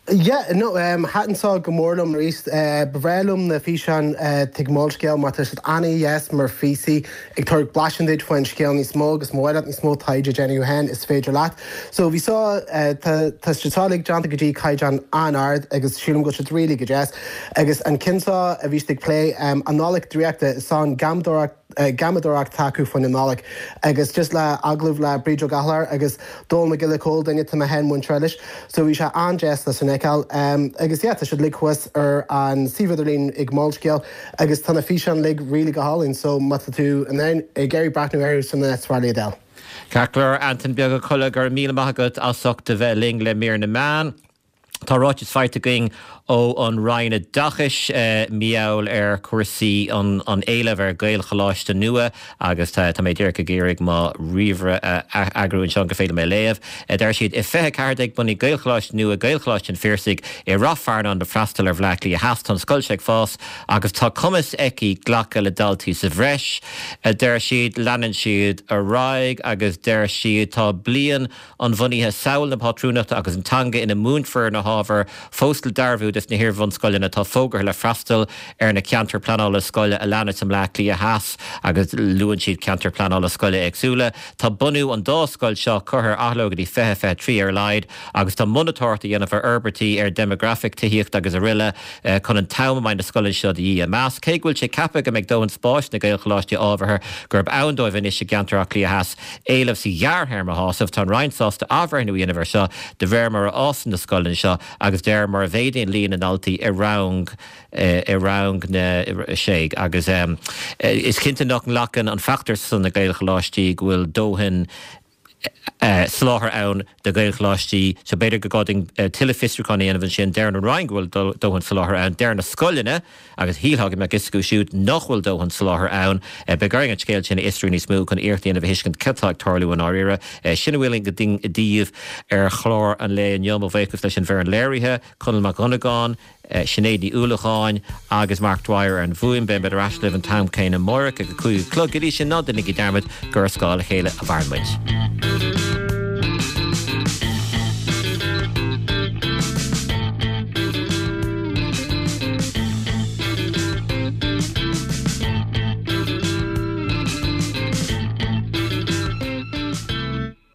Yeah, no, thaitin seo go mór liom arís. Ba bhreá liom na físeáin ag Molscéal mar tá siad an-dheas mar phíosaí ag tabhairt blaiseadh duit faoin scéal níos mó agus má mhaith leat níos mó taighde a dhéanamh féin is féidir leat. So bhí seo, tá siad seo uilig déanta go dtí caighdeán an-ard agus sílim go bhfuil siad really go deas. Agus an ceann seo a bhí siad ag plé, an Nollaig Draíochta, is an gheamadóireacht, gheamadóireacht atá acu faoin Nollaig. Agus just le agallamh le Bríd Ó Gallchóir agus Dónall Mac Giolla Chóill, duine atá mé féin muinteartha leis. So bhí sé an-deas le sin a fheiceáil. Agus yeah, tá siad uilig thuas ar an suíomh idirlín ag Molscéal agus tá na físeáin uilig really go hálainn. So má tá tú in ann ag iarraidh breathnú orthu san is fearr iad a fháil. Ceart go leor, Antain Beag Ó Colla, go raibh míle maith agat as ucht a bheith linn le mír na meán. Tá ráiteas faighte againn ó an Roinn Oideachais mar gheall ar chúrsaí an éilimh ar Ghaelcholáiste nua agus tá mé díreach ag iarraidh mo ríomhaire a eagrú anseo gur féidir liom é a léamh. Deir siad, I 2014 bunaíodh Gaelcholáiste nua, Gaelcholáiste an Phiarsaigh, i Rath Fearnáin le freastal ar Bhleá Cliath Theas. Tá an scoil seo ag fás agus tá cumas aici glacadh le daltaí sa bhreis, a deir siad. Leanann siad ar aghaidh agus deir siad, Tá bliain an bhunaithe, samhail na pátrúnachta agus an teanga ina múinfear na hábhair fós le dearbhú dos na hiar-bhunscoileanna atá fógartha le freastal ar na ceantair pleanála scoile a leanas i mBleá Cliath Theas agus luann siad ceantair pleanála scoile éagsúla. Tá bunú an dá scoil seo curtha ar athló go dtí 2023 ar a laghad agus tá monatóireacht á dhéanamh ar fhorbairtí ar dhéimeagrafaic, tithíocht agus aroile chun an t-am a mbeidh na scoileanna seo de dhíth a mheas. Cé go bhfuil sé ceaptha go mbeidh dóthain spáis sna Gaelcholáistí ábhartha gurb ann dóibh anois i gceantar Átha Cliath Theas, éileamh sa ghearrthéarma a shásamh. Tá an Roinn sásta athbhreithniú a dhéanamh air seo de réir mar a fhásann na scoileanna seo agus de réir mar a mhéadaíonn líon na ndaltaí i rang i rang na sé agus is cinnte nach nglacann an feachtas ar son na Gaelcholáistí go bhfuil dóthain soláthair ann do Ghaelcholáistí so b'fhéidir gur gá dúinn tuilleadh fiosrúcháin a dhéanamh ansin. Deir an Roinn go bhfuil dóthain soláthair ann. Deir na scoileanna. Agus shílfeá go mbeadh fhios acu siúd nach bhfuil dóthain soláthair ann. Beidh orainn an scéal sin a fhiosrú níos mó chun iarracht a dhéanamh a thuiscint cad tá ag tarlú i ndáiríre. Sin a bhfuil againn daoibh ar chlár an lae inniu. Mo bhuíochas leis an bhfoireann léirithe, Conall Mac Dhonnagáin, Sinéad Ní Uallacháin agus Mark Dwyer ar an bhfuaim. Beimid ar ais libh an t-am céanna amárach ag a 5 a chlog. Go dtí sin, ná déanaigí dearmad gur ar scáth a chéile a mhaireann muid.